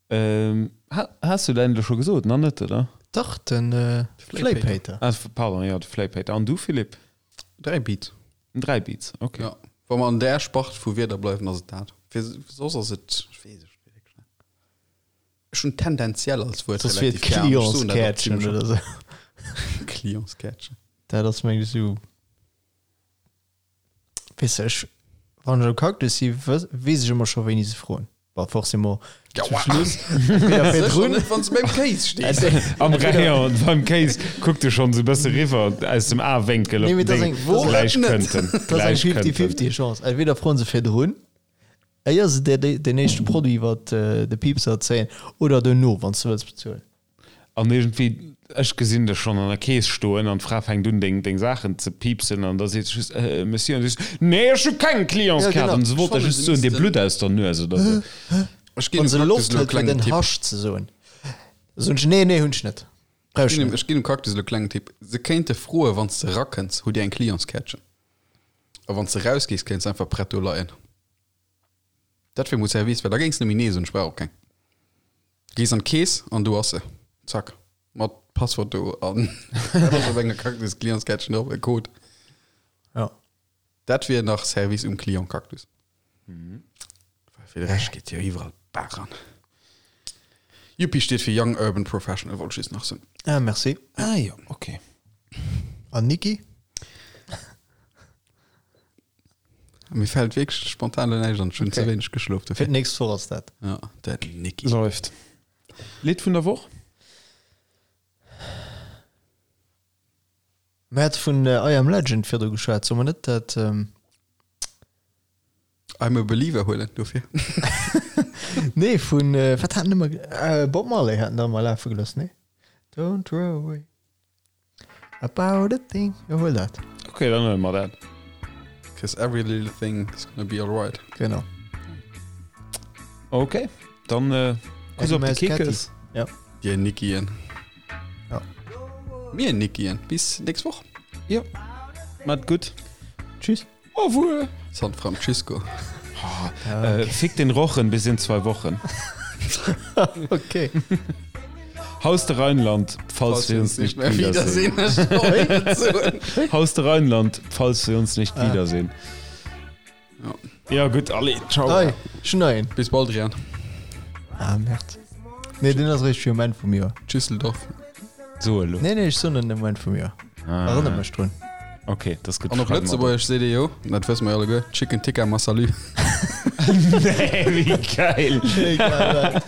Ähm, ha, has du däin elo scho gesot? Nach net, oder? Dach, den Fléipéiter. Ah, pardon, jo, de Fléipéiter. An du, Philippe? 3 Beats. 3 Beats, okay. Ja, wa mer an där Spart vu Wierder bleiwen, ass et dat. Fir soss ass et, ech weess et wierklech net. Ech hunn tendenziell als Wuert Soss wier et relativ gär an ech soen dat och Clientskärtchen zimmlech oder oft. sou. Clientskärtchen. Dat ass mengen ech esou, weess de, ech, wann ech am Cactus si, weess ech ëmmer scho wéini se froen. Bon, forcément zum Schluss, entweder Sécher virdrun, net, wann s de beim Kéis stees. Am Rayon beim Kéis kuckt e schonn esou e bësse riwwer aus dem Awénkel Nee, op mee den dat ass Ding. eng, dat ass eng, Gläich kënnt en, dat ass eng gläich kënnt en. 50-50 Chance. Entweder froen se virdrun, éier se dir deen éischte Produit iwwer de Piepser zéien, oder dono, wann s de wëlls bezuelen. An iergendwéi, ech gesinn dech schonn an der Kees stoen an d'Fra fänkt un deng deng Saachen ze piipsen an da seet se just, Äh, Monsieur, an du sees, Nee, ech hu keng Clientskaart! An se wollt der just soen, dir blutt aus der Nues oder sou. Ech ginn Wann dem se Cactus Loft elo e hëlt fir klengen den Tipp. Hasch ze soen, da soen ech, Nee, nee, hunn ech net. Brauch Ech ech ginn dem, net. ech ginn dem Cactus elo e klengen Tipp. Se kéinte froen, wann s de erakënns, hutt Dir eng Clientskärtchen? A wann s de erausgees, kéints de einfach prett do leien. Dat wier mol Service, well da géings de nemmi nee soen, ech brauch och keng. Gees an d'Kees an do ass se. Zack. Mat Passwort do an dat ass op enger Cactus Clientskärtchen drop, e Code. Ja. Dat wier nach Service um Client Cactus. Well fir de Rescht geet jo iwwerall d'Baach an. Yuppie steet fir Young Urban Professional, wollt ech just nach soen. Ah, merci. Ah jo, okay. An Niki? Mir fällt wierklech spontan elo näischt an. Ech hunn ze wéineg geschlof Fir dofir. d'nächst Woch ass dat. Ja, den Niki. Läuft. Lidd vun der Woch? Mir hate vun I Am Legend virdru geschwat. Solle mer net dat. I'm a Believer huelen dofir. Nee, vun, wat haten ëmmer, Bob Marley haten der ëmmer lafe gelooss, nee? Don't worry. About a thing. Jo, huel dat. Ok, dann huele mer dat. Cause every little thing is gonna be alright. Genau. Ok, dann äh, Kuss op de Kekes. Ja. Dir Nickien. Ja. Mir Nickien. Bis nächst Woch. Ja. Mat gutt. Tschüss. Au revoir. San Francisco. Äh, fick den Rochen bis in zwei Wochen. Okay. Haus de Rheinland, falls wir uns nicht mehr wiedersehen. Haus de Rheinland, falls wir uns nicht ah. wiedersehen. Ja, ja gut, alle. Ciao. Hey, schneien. Bis bald, Rian. Ah, merde. Nee, den ass réischt fir um Enn vum Joer. Düsseldorf. So elo. Nee, nee, ech soen en um Enn vum Joer. Ah. Erënner mech drun. Ok, das gëtt An op Lëtzebuergesch seet ee jo, dat wësse mer jo alleguer, Chicken Tikka Massalu. Nee, wéi geil! Egal wat.